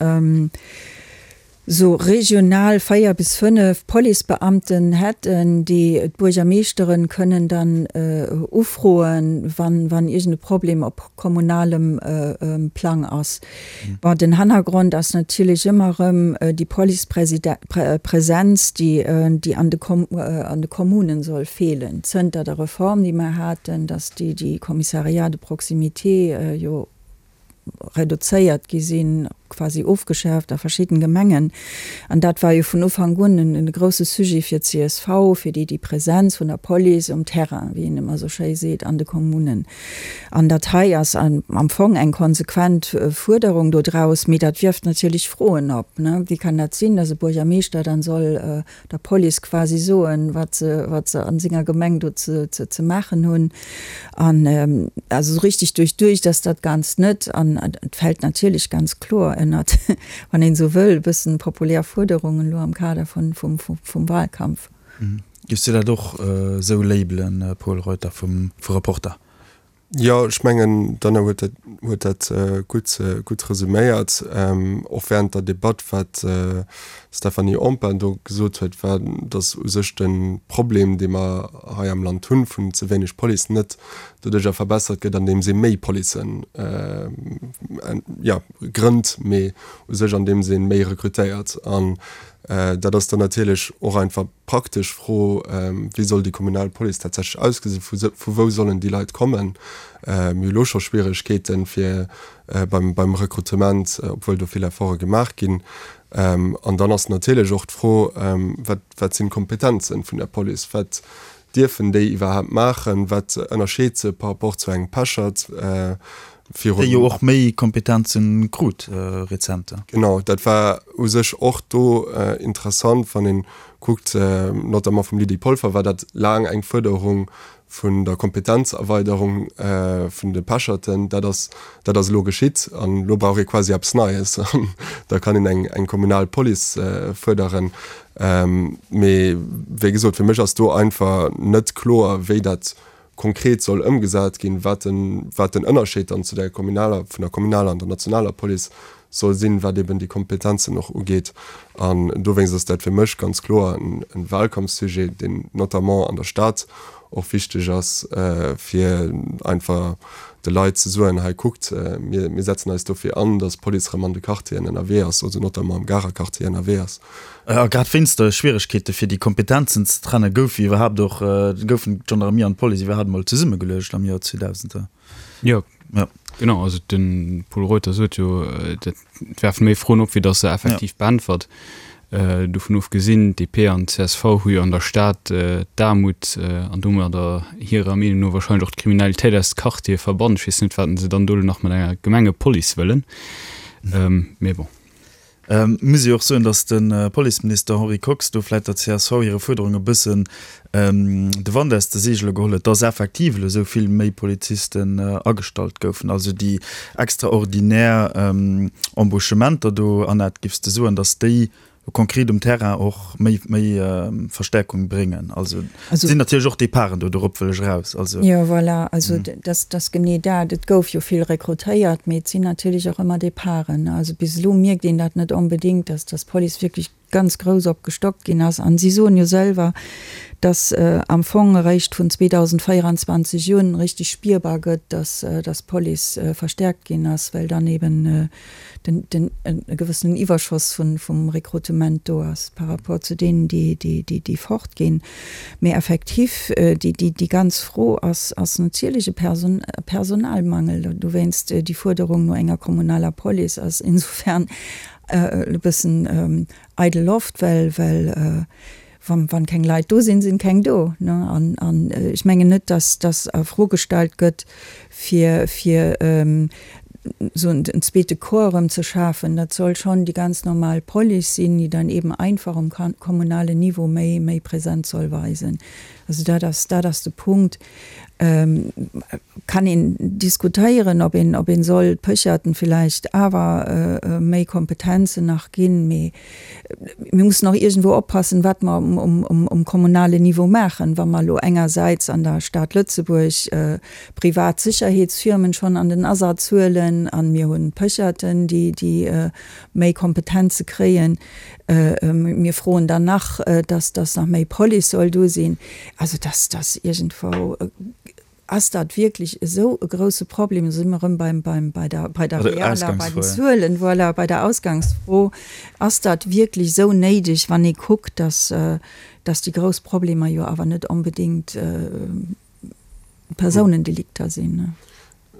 sou regional 4 bis 5 Policebeamten hätten, déi d'Buergermeeschteren kënnen dann ufroen, wann wann iergend e Problem op kommunalem Plang ass. Bon, den Hannergrond ass natierlech ëmmer erëm déi Policepresenz, déi déi an de an de Kommunen soll feelen, zënter der Reform, déi mer haten, dass déi déi Commissariats de proximité jo reduzéiert gi sinn, quasi ofgeschaaft a verschidden Gemengen. An dat war jo vun Ufank un en grousse Sujet fir d'CSV, fir déi déi Präsenz vun der Police um Terrain, wéi een ëmmer esou schéi seet, an de Kommunen. An dat hei ass am Fong eng konsequent Fuerderung dodraus, mee dat wierft natierlech Froen op, ne. Wéi kann dat sinn, dass e Buergermeeschter dann soll der Police quasi soen, wat se, wat se an senger Gemeng do ze, ze, ze maachen hunn. An also esou richtig duerchduecht ass dat Ganzt net. An et fält natierlech ganz kloer ënnert, wann een esou wëll, e bëssen populär Fuerderungen elo am Kader vun, vum, vum Wahlkampf. Giffs du dat och esou labelen, Pol Reuter vum, vu Reporter? Jo, ech mengen, d'Anna huet dat, huet dat gutt, gutt resuméiert. Och während der Debatt, wat d'Stéphanie Empain do gesot huet, war, datt u sech de Problem, dee mer hei am Land hunn, vun ze wéineg Police net doduerjer verbessert gëtt, andeems ee méi Policen, jo, grënnt, mee u sech andeems ee méi rekrutéiert. An dat ass dann natierlech och einfach praktesch Fro, Wéi soll déi kommunal Police tatsächlech ausgesinn? Vu vu wou sollen déi Leit kommen? Mir hu lo scho Schwieregkeeten, fir beim beim Rekrutement, obwuel do vill Efforte gemaach ginn. An dann ass natierlech och d'Fro, Wat wat sinn d'Kompetenzen vun der Police? Wat dierfen déi iwwerhaapt maachen? Wat ënnerscheet se par rapport zu engem Pechert? Virun. Déi jo och méi Kompetenzen krut rezent. Genau, dat war u sech och do interessant, wann ee kuckt, notamment vum Lydie Polfer war dat laang eng Fuerderung vun der Kompetenzerweiderung vun de Pecherten. Dat ass, dat ass elo geschitt an elo brauch ee quasi eppes Neies an da kann een eng, eng kommunal Police fuerderen. Mee wéi gesot, fir mech ass do einfach net kloer, wéi dat konkret soll ëmgesat ginn, wat den, wat den Ënnerscheed dann zu der kommunaler, vun der kommunaler an der nationaler Police soll sinn, wat eben déi Kompetenzen och ugeet. An dowéinst ass dat fir mech ganz kloer en, en Wahlkampfsujet, deen notamment an der Stad och wichteg ass, fir einfach de Leit ze soen, hei kuckt, mir, mir setzen eis dofir an, dass d'Police erëm an de Quartieren ënnerwee ass, also notamment am Garer Quartier ënnerwee ass. A grad wéinst de Schwieregkeete fir déi Kompetenzen ze trennen, gouf iwwerhaapt och, goufen d'Gendarmerie an d'Police iwwerhaapt emol zesummegeluecht am Joer 2000. Jo, genau. Also de Pol Reuter sot jo, dat werfen méi Froen op, wéi datt se effektiv beäntwert. Dovun ofgesinn, d'DP an d'CSV hu jo an der Stad d'Aarmut an domadder hirer Meenung no warscheinlech och d'Kriminalitéit aus de Quartiere verbannt. Ech weess net, wat se dann do elo nach mat enger Gemengepolice wëllen. Mee bon. Muss ee och soen, datt de Policeminister Henri Kox do vläit der csv hire Fuerderung e bëssen de Wand aus de Seegele geholl huet, datt effektiv elo esou vill méi Polizisten agestallt goufen. Also déi extraordinär Embauchementer do, Annette, giffs de soen, datt déi konkret um Terrain och méi méi Verstärkung bréngen? Also et sinn natierlech och Departen do, dorop wëll ech eraus. Also. Jo, voilà, also dat ass genee dat. Et gouf jo vill rekrutéiert, mee et sinn natierlech och ëmmer Departen. Also bis elo mierkt een dat net onbedéngt, dass dass d'Police wierklech ganz grouss opgestockt ginn ass. An si soen jo selwer, dass am Fong eréischt vun 2024 un richtig spierbar gëtt, dass dass d'Police verstärkt ginn ass, well dann eben den, den, e gewëssenen Iwwerschoss vun, vum Rekrutement do ass par rapport zu deenen, déi, déi, déi, déi fortginn. Mee effektiv, déi, déi, déi ganz Fro ass, ass natierlech e Person, e Personalmangel. Dowéinst déi Fuerderung no enger kommunaler Police ass insofern e bëssen eidel Loft, well, well Wann, wann keng Leit do sinn, sinn keng do, ne? An, an ech mengen net, dass, dass a Fro gestallt gëtt, fir, fir esou en, en zweete Corps erëm ze schafen. Dat soll schonn déi ganz normal Police sinn, déi dann eben einfach um kommunalen Niveau méi, méi Präsenz soll weisen. Also dat ass, dat ass de Punkt. Kann een diskutéieren, ob een, ob een soll d'Pécherten villäicht awer méi Kompetenzen nach ginn, mee mir mussen och iergendwou oppassen, wat mer um, um, um kommunalen Niveau maachen. Wa mer elo engersäits an der Stad Lëtzebuerg privat Sécherheetsfirmen schonn an den Asaz huelen an mir hunn d'Pécherten, déi, déi méi Kompetenze kréien, Mir froen dann nach, dass dass nach méi Police soll do sinn. Also dass dass iergendwou, ass dat wierklech esou e grouse Problem? Do si mer erëm beim, beim, bei der, bei der realer, bei den Zuelen, voilà, bei der Ausgangsfro. Ass dat wierklech esou néideg, wann ee kuckt, dass dass déi grouss Problemer jo awer net onbedéngt Persounendelikter sinn?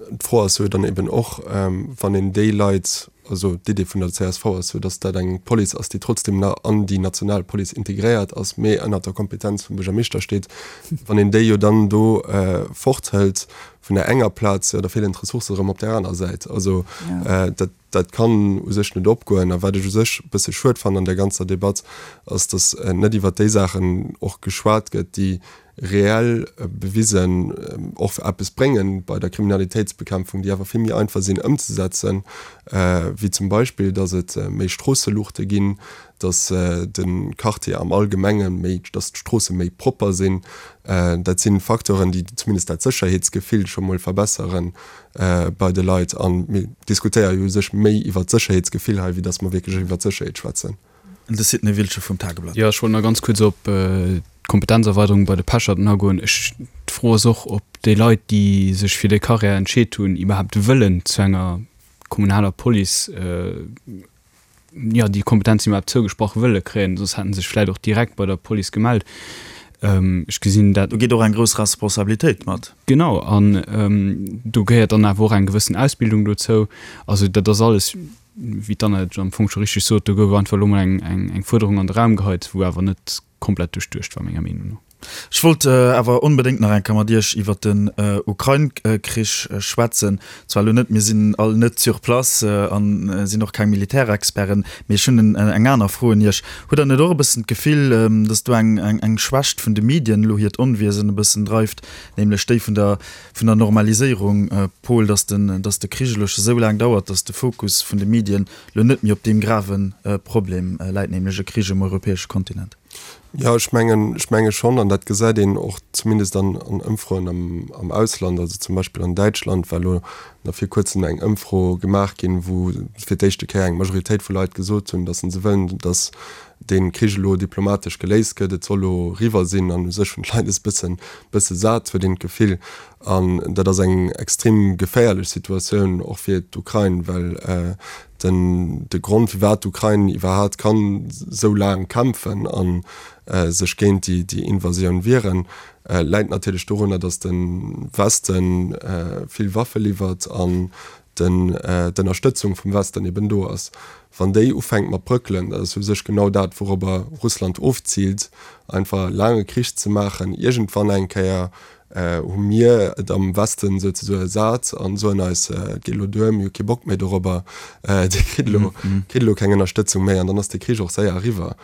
D'Fro ass jo dann eben och, wann een déi Leit, also d'Idee vun der csv ass jo, datt dat eng Police ass, déi trotzdem nach an déi national Police integréiert ass, mee ënnert der Kompetenz vum Buergermeeschter steet, wann een déi jo dann do forthëlt vun der enger Plaz, jo da feelen d'Ressourcë erëm op där aner Säit. Also dat, dat kann u sech net opgoen. A wat ech u sech e bësse schued fannen an där ganzer Debatt, ass, datt net iwwert déi Saachen och geschwat gëtt, déi. reell bewisen och eppes bréngen bei der Kriminalitéitsbekämpfung, déi awer vill méi einfach sinn ëmzesetzen, wéi zum Beispill, datt et méi Stroosseluuchte ginn, datt de Quartier am Allgemenge méi, datt d'Stroosse méi propper sinn. Dat si Facteuren, déi zumindest dat Sécherheetsgefill scho mol verbessere bei de Leit. A mir diskutéiere jo u sech méi iwwert d'Sécherheetsgefill hei, wéi datt mer wierklech iwwert d'Sécherheet schwätzen. De Sidney Wiltgen vum Tageblatt. Jo, ech wollt nach ganz kuerz op d'Kompetenzerweiderung bei de Pecherten agoen. Ech, d'Fro ass och, ob déi Leit, déi sech fir déi Carrière entscheet hunn, iwwerhaapt wëllen zu enger kommunaler Police, jo, déi Kompetenzen iwwerhaapt zougesprach wëlle kréien. Soss hätte se sech vläicht och direkt bei der Police gemellt. Ech gesinn dat. Do geet och eng grouss Responsabilitéit mat. Genau, an do gehéiert dann awer och eng gewëssen Ausbildung dozou. Also dat ass alles. wéi d'Anna et am Fong scho richteg sot, do gouf einfach elo mol eng Fuerderung an de Raum geheit, wou awer net komplett duerchduecht war, menger Meenung no. Ech wollt awer onbedéngt nach eng Kéier mat Iech iwwert den Ukrain-Krich schwätzen. Zwar elo net, mir sinn all net sur place a sinn och keng Militärexperten, mee ech hunn eng aner Fro un Iech. Hutt Der net och e bëssen d'Gefill, datt do eng Schwächt vun de Medien elo hiert Onwiesen e bëssen dreift, nämlech déi vun der vun der Normaliséierung, Paul, dass den, dass de Krich elo scho sou laang dauert, dass de Fokus vun de Medien elo net méi op deem grave Problem läit, nämlech e Krich um europäesche Kontinent? Jo, ech mengen, ech menge schonn, an dat gesäit een och zumindest an, an Ëmfroen am, am Ausland, also zum Beispill an Däitschland war elo nach vir kuerzem eng Ëmfro gemaach ginn, wou fir d'éischte Kéier eng Majoritéit vu Leit gesot hunn, dass se wëllen, dass dee Krich elo diplomatesch geléist gëtt, et soll elo eriwwer sinn an u sech hunn d'Leit es bëssen, bësse sat, huet een d'Gefill. An dat ass eng extrem geféierlech Situatioun och fir d'Ukrain, well den, de Grond firwat d'Ukrain iwwerhaat kann esou laang kämpfen a sech géint déi, déi Invasioun wieren, läit natierlech dorunner, datt de Weste vill Waffe liwwert an den d'Ënnerstëtzung vum Westen eben do ass. Wann déi ufänkt mat bröckelen, dat ass u sech genau dat wourobber Russland ofziilt, einfach laange Krich ze maachen, iergendwann eng Kéier hu mir et am Westen souzesoe sat an soen eis, et geet elo duer, mir hu kee Bock méi dorobber, Dir kritt elo, kritt elo keng Ënnerstëtzung méi an dann ass de Krich och séier eriwwer,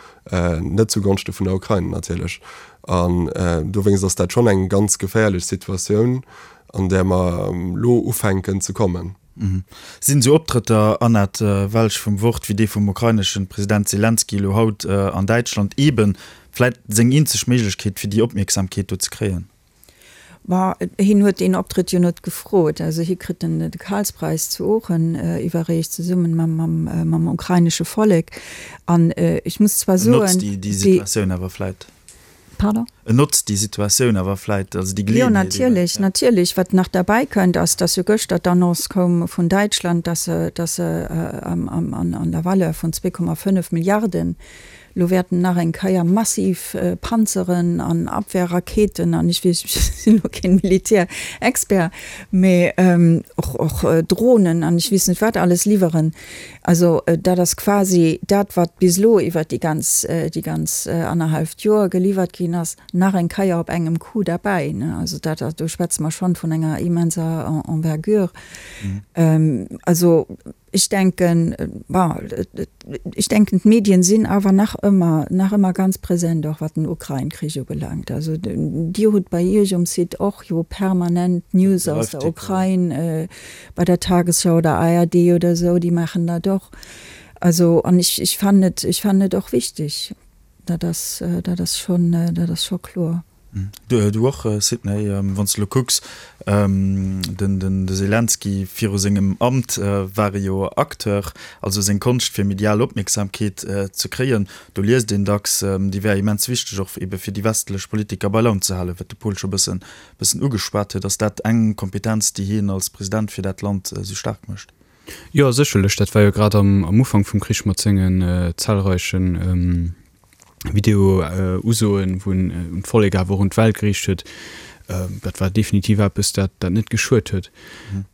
net zu Gonschte vun der Ukrain natierlech. An dowéinst ass dat schonn eng ganz geféierlech Situatioun, an där mer elo ufänken ze kommen. Sinn esou Optrëtter, Annette Welsch vum Wort, wéi dee vum ukraineschen President Selenskyj elo haut an Däitschland, eeben vläit seng eenzeg Méiglechkeet, fir déi Opmierksamkeet do ze kréien? Bon, hien huet deen Optrëtt jo net gefrot. Also hie kritt den de Karlspreis zu Oochen iwwerreecht, zesummen mam mam ukrainesche Vollek. An ech muss zwar soen. En notzt déi Situatioun awer vläit. Pardon? En notzt déi Situatioun awer vläit, also déi Geleeënheet. Jo, natierlech, natierlech. Wat nach derbäi kënnt, ass, dass jo gëschter d'Annonce koum vun Däitschland, dass se, dass se an der Valeur vun 2,5 Milliarden elo wäerten nach eng Kéier massiv Panzeren an Abwehrraketen an ech weess, ech sinn elo keen Militärexpert, mä och, och Dronen an ech weess net wat alles liwweren. Also dat ass quasi dat, wat bis elo iwwert déi ganz, déi ganz annerhalleft Joer geliwwert ginn ass, nach eng Keier op engem Coup derbäi. Also dat, do schwätze mer schonn vun enger immenser Envergure. Also ech denken, bon, ech denken d'Medien sinn awer nach ëmmer, nach ëmmer ganz present, och wat den Ukrain-Krich ubelaangt. Also Dir hutt bei Iech um Site och jo permanent News aus der Ukrain. bei der Tagesschau oder ARD oder esou, déi maachen dat och. Also an ech, ech fannen et, ech fannen et och wichteg. Dat ass, dat ass schonn, dat ass scho kloer. Du, du och, Sidney, wann s de elo kucks, den, den, de Selenskyj viru sengem Amt war e jo Acteur, also seng Konscht fir medial Opmierksamkeet ze kréien, do liest een dacks, déi wär immens wichteg och ebe fir déi westlech Politiker bei Laun ze halen, wat de Paul scho bëssen bëssen ugeschwat huet. Ass dat eng Kompetenz, déi hien als President fir dat Land esou staark mécht? Jo, sécherlech. Dat war jo grad am Ufank vum Krich mat sengen zahlreichen Video-Usoen, wou en un d'Vollek awer och un d'Welt geriicht huet. Dat war definitiv eppes, dat dat net geschuet huet.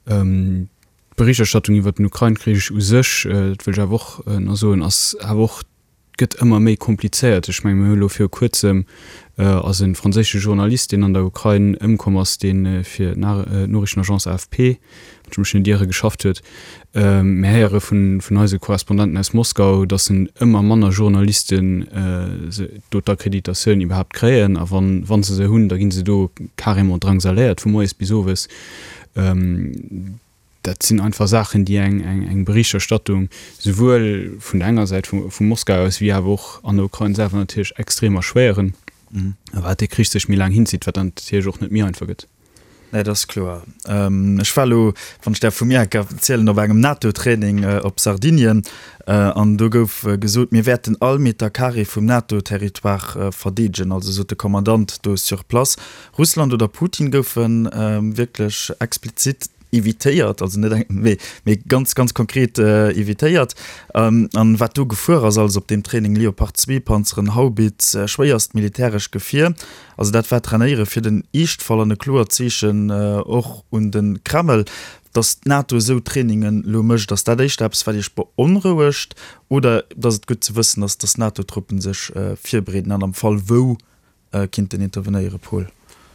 D'Berichterstattung iwwer den Ukrain-Krich u sech, dat wëll ech awer och nach soen, ass awer och gëtt ëmmer méi komplizéiert. Ech menge mir hu elo viru kuerzem. Ass e franséische Journalist, deen an der Ukrain ëmkomm ass, dee fir d'Noriichtenagence AFP, wann ech mech net iere, geschafft huet. Mir héiere vun eise Korrespondenten aus Moskau, datt en ëmmer manner Journalisten do d'Akkreditatioun iwwerhaapt kréien. A wa se se hunn, da gi se do carrément drangsaléiert vu moies bis owes. Dat sinn einfach Saachen, déi eng Berichterstattung souwuel vun der enger Säit vu Moskau aus wéi awer och an der Ukrain selwer natierlech extrem erschwéieren. A wat dee Krich sech méi laang hinzitt, wat dann natierlech och net méi einfach gëtt. Nee, dat ass kloer. Ech war elo, wann ech däerf vu mir enker erzielen, op engem NATO-Training op Sardinien an do gouf gesot, mir wäerten all Meter carré vum NATO-Territoire verdeedegen, also sot de Kommandant do sur place. Russland oder Putin goufe wierklech explizit evitéiert, also net eng, mee, mee ganz, ganz konkret evitéiert. An wat do gefuer ass alles op deem Training, Leopard 2 Panzeren, Haubitz, schwéierst militäresch Gefier, also dat war Trainéiere fir den Eeschtfall an e kloert Zeechen och un de Kreml. Datt d'NATO esou Trainingen elo mécht, ass dat éischter eppes wat Iech beonrouegt oder datt et gutt ze wëssen ass, datt NATO-Truppen sech virbereeden an am Fall wou kinnten intervenéieren, Paul?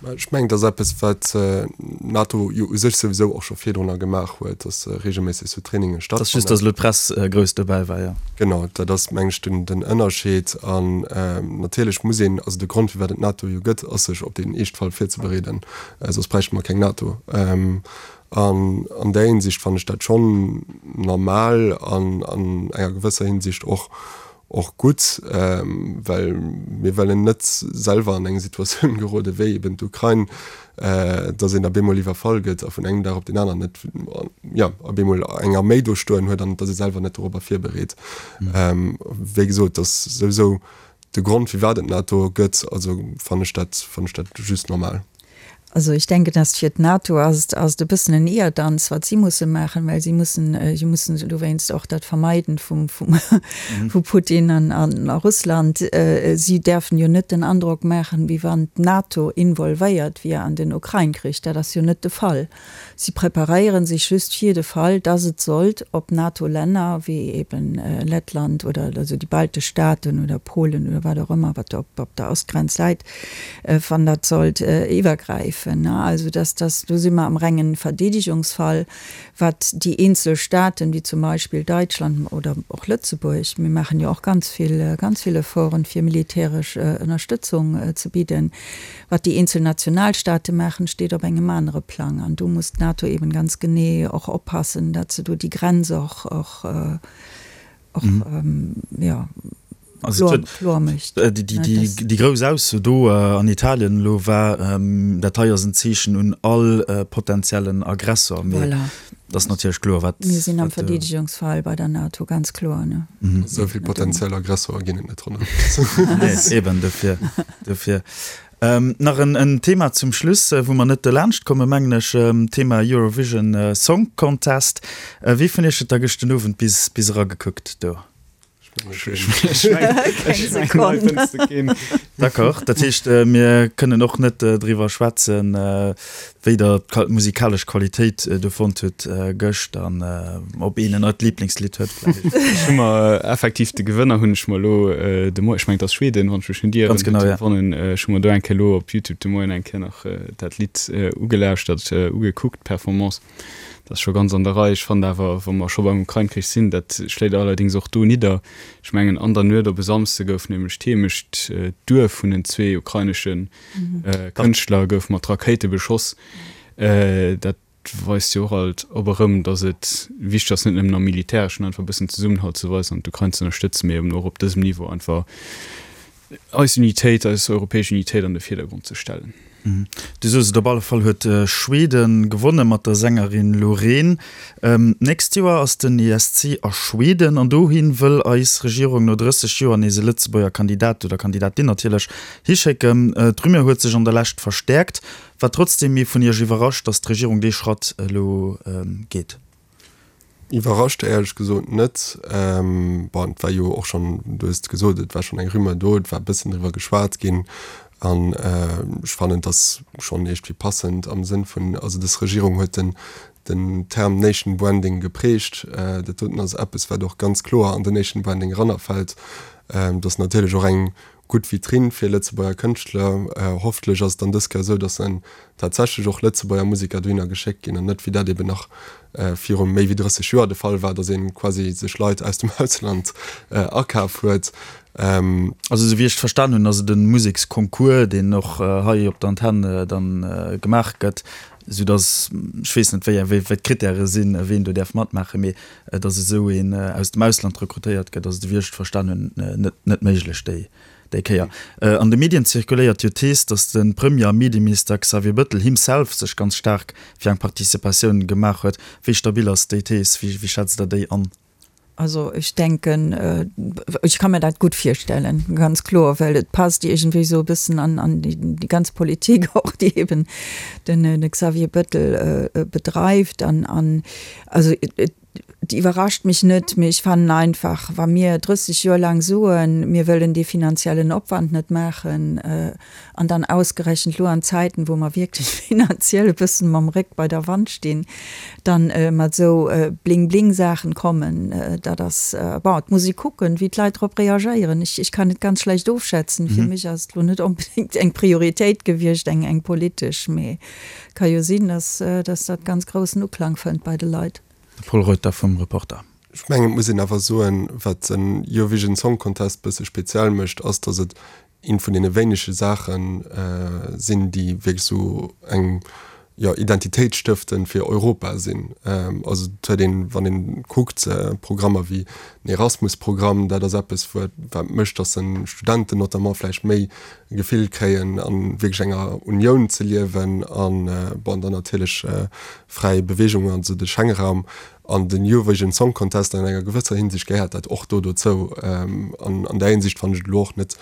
Ech mengen, dat ass eppes, wat d'NATO jo u sech souwisou och scho virdrunner gemaach huet, datt reegelméisseg esou Traininge stattfannen. Et ass just, datt elo d'Press grouss dobäi war, jo. Genau, dat ass, meng ech, den Ënnerscheed. An natierlech muss een, also de Grond, firwat et d'NATO jo gëtt, ass sech op deen Eeschtfall virzebereeden, soss bräichte mer keng NATO. An an där Hinsicht fannen ech dat schonn normal an an enger gewësser Hinsicht och och gutt, well mir wëllen net selwer an eng Situatioun gerode wéi eben d'Ukrain, dass een op eemol iwwerfall gëtt a vun engem Dag op deen aneren net, jo, op eemol eng Arméi do stoen huet an et ass ee selwer net dorobber virbereet. Wéi gesot, dat ass souwisou de Grond, firwat et d'NATO gëtt, also fannen ech dat, fannen ech dat just normal. Also ich denke, dass fir d'NATO ass et ass et e bëssen en Ierdanz, wat si musse maachen, well si mussen si mussen dowéinst och dat vermeiden vum vum vu Putin an an a Russland. Si däerfen jo net den Androck maachen, wéi wann d'NATO involvéiert wier an den Ukrain-Krich. Dat ass jo net de Fall. Si preparéiere sech just fir de Fall, dass et sollt op NATO-Länner wéi eben Lettland oder also déi baltesch Staaten oder Polen oder wat och ëmmer, wat op op der Ostgrenz läit, wann dat sollt iwwergräifen. Also dass dass do si mer am rengen Verdeedigungsfall, wat déi eenzel Staaten, wéi zum Beispill Deutschland oder och Lëtzebuerg, mir maachen jo och ganz vill ganz vill Efforten, fir militäresch Ënnerstëtzung ze bidden, Wat déi eenzel Nationalstaate maachen, steet op engem anere Plang. An do muss d'NATO eben ganz genee och oppassen, datt se do déi Grenz och, och, och, jo, kloer mécht. Déi grouss Ausso do an Italien elo war, dat hei ass en Zeechen un all potentiellen Aggressor. Mee et ass natierlech kloer, wat. Mir sinn am Verdeedegungsfall bei der NATO, ganz kloer. Esou vill potentiell Aggressorer ginn et net ronderëm. Nee, eben dofir. Dofir. Nach en Thema zum Schluss, wou mer net dolaanscht kommen, mengen ech, Thema Eurovision Song Contest. Wie vun Iech huet da gëscht den Owend bis bis eragekuckt do? D'accord, dat heescht, mir kënnen och net driwwer schwätzen, wéi Der d'musikalesch Qualitéit do fonnt hutt gëscht an ob een en neit Liblingslidd huet vläicht. Ech hu mer effektiv de Gewënner hunn ech mer elo de Moien, ech mengen et ass Schweden, wann ech mech net ieren, Ganz genau, ja. gewonnen. Ech hu mer do eng Kéier elo op Youtube de Moien eng Kéier nach dat Lidd ugelauschtert, ugekuckt, d'Performance. Dat ass scho ganz an der Rei. Ech fannen awer, wa mer scho beim Ukrain-Krich sinn, dat schléit allerdéngs och do nidder, ech mengen an der Nuet op e Samsde gouf nämlech d'Heemecht, d'Duerf vun den zwee ukrainesche Kënschtler gouf mat Rakéite beschoss. Dat weist jo och alt op erëm, datt et wichteg ass, net nëmmen am Militäreschen einfach e bëssen Zesummenhalt ze weisen an d'Ukrain ze ënnerstëtzen, mee eben och op dësem Niveau einfach eis Unitéit, eis europäesch Unitéit an de Virdergrond ze stellen. Du soos et, op alle Fall huet Schweden gewonne mat der Sängerin Loreen. D'nächst Joer ass den ESC a Schweden an dohi wëll eis Regierung no 30 Joer nees e Lëtzebuerger Kandidat oder Kandidatin natierlech hischécken. D'Rumeur huet sech an der Lescht verstäerkt. War trotzdeem ee vun Iech iwwerrascht, datt d'Regierung dee Schratt elo geet? Iwwerrascht éierlech gesot net. Bon, et war jo och schonn, du hues et gesot, et war schonn eng Rumeur do, et war e bëssen driwwer geschwat ginn. An ech fannen, et ass schonn iergendwéi passend am Sënn vun, also dës Regierung huet den. Den Term Nation Branding geprägt. Dat doten ass eppes, wat och ganz kloer an den Nation Branding erannerfält. Dat ass natierlech och eng gutt Vitrinn fir Lëtzebuerger Kënschtler. Hoffentlech ass et dann dës Kéier esou, datt en tatsächlech och Lëtzebuerger Museker dohinner geschéckt ginn an net, wéi dat eben nach viru méi wéi 30 Joer de Fall war, datt ee quasi sech Leit aus dem Ausland akaf huet. Also esou wéi ech et verstan hunn, ass et e Museksconcours, deen och hei op der Antenn dann gemaach gëtt. Esou dass, ech weess net, wéi wéi d'Krittäre sinn, ween do däerf matmaachen, mee dass esou een aus dem Ausland rekrutéiert gëtt, ass, esou wéi ech et verstan hunn, net net méiglech déi déi Kéier. An de Medien zirkuléiert jo d'Thees, dass de Premier a Medieminister Xavier Bëttel himself sech ganz staark fir eng Participatioun gemaach huet. Wéi stabil ass déi Thees? Wéi wéi schätzt Der déi an? Also ech denken, ech ka mir dat gutt virstellen, ganz kloer, well et passt iergendwéi esou e bëssen an an déi ganz Politik och, déi eben den de Xavier Bettel bedreift. An an also et iwwerrascht mech net, mee ech fannen einfach, wa mir 30 Joer laang soen, mir wëllen dee finanziellen Opwand net maachen, An dann ausgerechent elo an Zäiten, wou mer wierklech finanziell e bëssen mam Réck bei der Wand stinn, dann mat esou Bling-Bling-Saachen kommen, dat ass, bon, et muss ee kucken, wéi d'Leit drop reagéieren. Ech, ech kann et ganz schlecht ofschätzen. Fir mech ass et elo net onbedéngt eng Prioritéit gewiescht, eng, eng politesch, mee ka jo sinn, dass, dass dat ganz groussen Uklang fënnt bei de Leit. De Pol Reuter vum Reporter. Ech mengen, et muss een awer soen, wat den Eurovision Song Contest bësse speziell mécht, ass, dass et eent vun deene wéinege Saache sinn, déi wierklech esou eng, jo, identitéitsstëftend fir Europa sinn. Also et huet een, wann een kuckt, Programmer wéi den Erasmus-Programm, dat ass eppes, wat wat mécht, datt de Studenten notamment vläicht méi e Gefill kréien, a wierklech enger Unioun ze liewen an, bon, dann natierlech fräi Beweegung, also de Schengenraum. An den Eurovision Song Contest an enger gewësser Hinsicht gehéiert dat och do dozou. An an där Hinsicht fannen ech et elo och net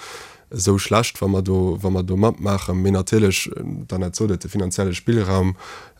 esou schlecht, wa mer do, wa mer do matmaachen. Mee natierlech, d'Annette sot et, de finanzielle Spillraum,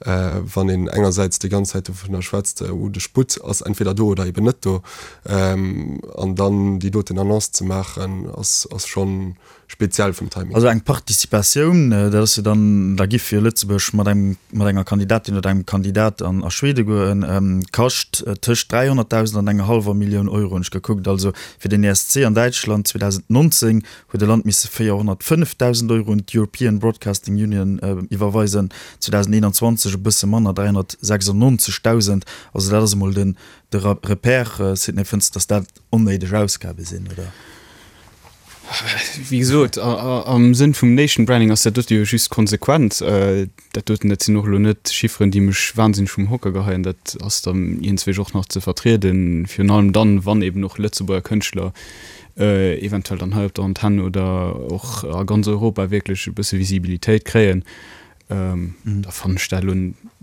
wann een engersäits déi ganz Zäit dovunner schwätzt, oh de Sputt ass entweder do oder eben net do, an dann déi doten Annonce ze maachen, ass, ass schonn, Speziell vum Timing. Also eng Participatioun, dat ass jo dann, da giff jo Lëtzebuerg mat engem, mat enger Kandidatin oder engem Kandidat an a Schwede goen, kascht tëscht 300.000 an enger hallwer Millioun Euro, hunn ech gekuckt. Also fir den ESC an Däitschland 2019 huet e Land misse 405.000 Euro un d'European Broadcasting Union iwwerweisen, 2021 e bësse manner, 396.000. Also dat ass emol den, de Repère. Sidney, fënns de, datt dat onnéideg Ausgabe sinn, oder? Wéi gesot, am Sënn vum Nation Branding ass dat dote jo just konsequent. Dat doten, dat sinn och elo net Chifferen, déi mech wahnsinneg vum Hocker geheien. Dat ass dann iergendzwéi och nach ze vertrieden, virun allem dann, wann eben och Lëtzebuerger Kënschtler eventuell dann hei op der Antenn oder och a ganz Europa wierklech e bësse Visibilitéit kréien. Da fannen ech dat elo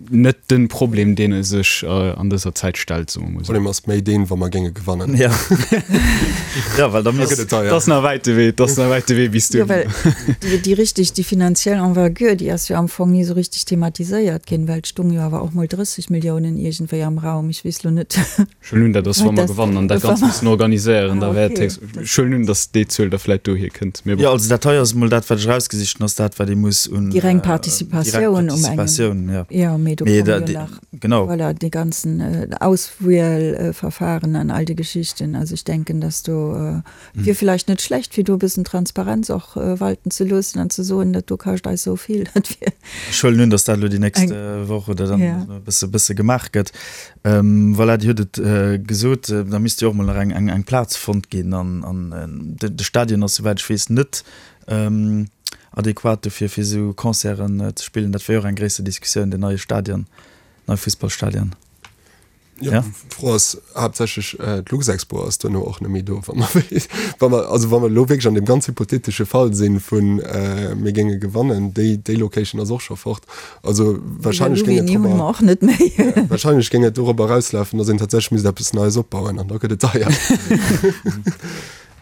net den Problem, deen e sech an dëser Zäit stellt, soe mer mol esou. Problem ass méi deen, wa mer géinge gewannen. Ja, ja, well da misst. Et ass nach wäit de Wee, et ass nach wäit de Wee bis duhin. Jo, well déi, déi richtig, déi finanziell Envergure, déi ass jo am Fong ni esou richtig thematiséiert ginn, well et stung jo awer och mol 30 Milliounen iergendwéi am Raum. Ech weess elo net. Ech huelen un, dat ass, wa mer gewannen an dat Ganzt mussen organiséieren, da wäert héchst, ech huelen un, datt déi Zuel da vläit dohier kënnt. Mee bon. Jo, also dat hei ass emol dat, wat ech erausgesicht hunn, ass dat, wat ee muss un. Déi reng Participatioun um engem. Jo. Jo, mee do komme jo nach, genau. Voilà, déi ganzen Auswielverfahren an all déi Geschichten. Also ech denken, datt do Wier villäicht net schlecht, fir do e bëssen Transparenz och walten ze loossen an ze soen, dat do kascht eis esou vill. Dat wier. Ech huelen un, datt dat elo déi nächst Woch oder dann e bësse, bësse gemaach gëtt. Voilà, Dir hutt et gesot, da misst jo och mol nach eng, eng, eng Plaz fonnt ginn an, an de, de Stadion ass, souwäit ech weess, net adequat dofir, fir esou Concerten ze spillen. Dat wier jo och eng gréisser Diskussioun, den neie Stadion, neie Fussballstadion. Ja, d'Fro ass haaptsächlech, d'Luxexpo ass duerno och net méi do, wa mer wa mer also wa mer elo wierklech an deem ganz hypothetesche Fall sinn vun mir géinge gewannen, déi déi Location ass och scho fort. Also wahrscheinlech géing et drop och net méi. Wahrscheinlech géing et dorobber erauslafen, datt een tatsächlech misst eppes Neies opbauen an da gëtt et deier.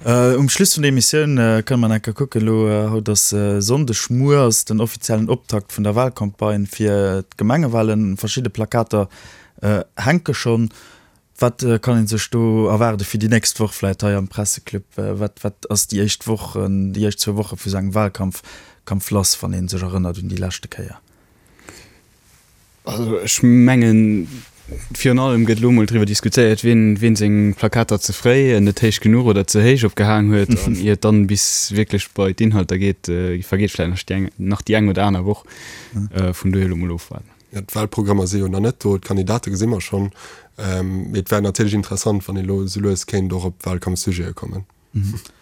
Um Schluss vun der Emissioun kënne mer nach eng Kéier kucken, elo haut ass Sonndeg, muer ass den offiziellen Optakt vun der Wahlcampagne fir d'Gemengewahlen. Verschidde Plakater hänke schonn. Wat kann ee sech do erwaarde fir déi nächst Woch vläicht hei am Presseclub? Wat wat ass déi éischt Woch, déi éischt zwou Woche vu sou engem Wahlkampf Kampf lass, wann ee sech erënnert un déi leschte Kéier? Also ech mengen, virun allem gëtt elo mol driwwer diskutéiert, wien, wien seng Plakater ze fréi, net héich genuch oder ze héich opgehaang huet. An ier et dann bis wierklech bei d'Inhalter geet, vergeet vläicht nach déi eng, nach déi eng oder aner Woch. Vun dohier elo mol ofwaarden. Jo, d'Wahlprogrammer si jo nach net do, d'Kandidate gesi mer schonn. Mee et wär natierlech interessant, wann ee lo esou lues kéint och op Wahlkampfsujete kommen.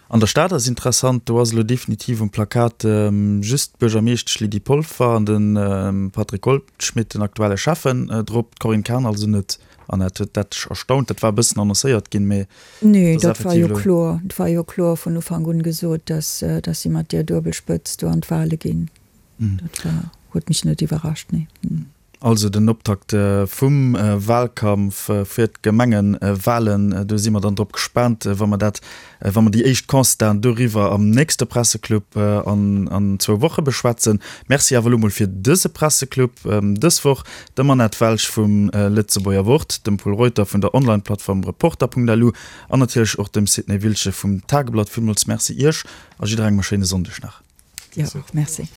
An der Stad ass interessant, do ass elo definitiv um Plakat just d'Buergermeeschtesch Lydie Polfer an de Patrick Goldschmidt, den aktuelle Schäffen, drop, d'Corinne Cahen also net. Annette, huet dat dech erstaunt? Dat war e bëssen annoncéiert ginn, mee Nee, dat war jo kloer. Et war jo kloer vun Ufank un gesot, datt si mat där Duebelspëtz do an d'Wale ginn. Dat war, huet mech net iwwerrascht, nee. Also den Optakt vum Wahlkampf fir d'Gemengewahlen, do si mer dann drop gespaant, wa mer dat, wa mer déi éischt Constaten doriwwer am nächste Presseclub an an zwou Woche beschwätzen. Merci awer elo mol fir dëse Presseclub dës Woch, dem Annette Welsch vum Lëtzebuerger Wort, dem Pol Reuter vun der Online-Plattform Reporter.lu an natierlech och dem Sidney Wiltgen vum Tageblatt. Villmools Merci Iech a jidderengem e schéine Sonndeg nach. Dir och, merci.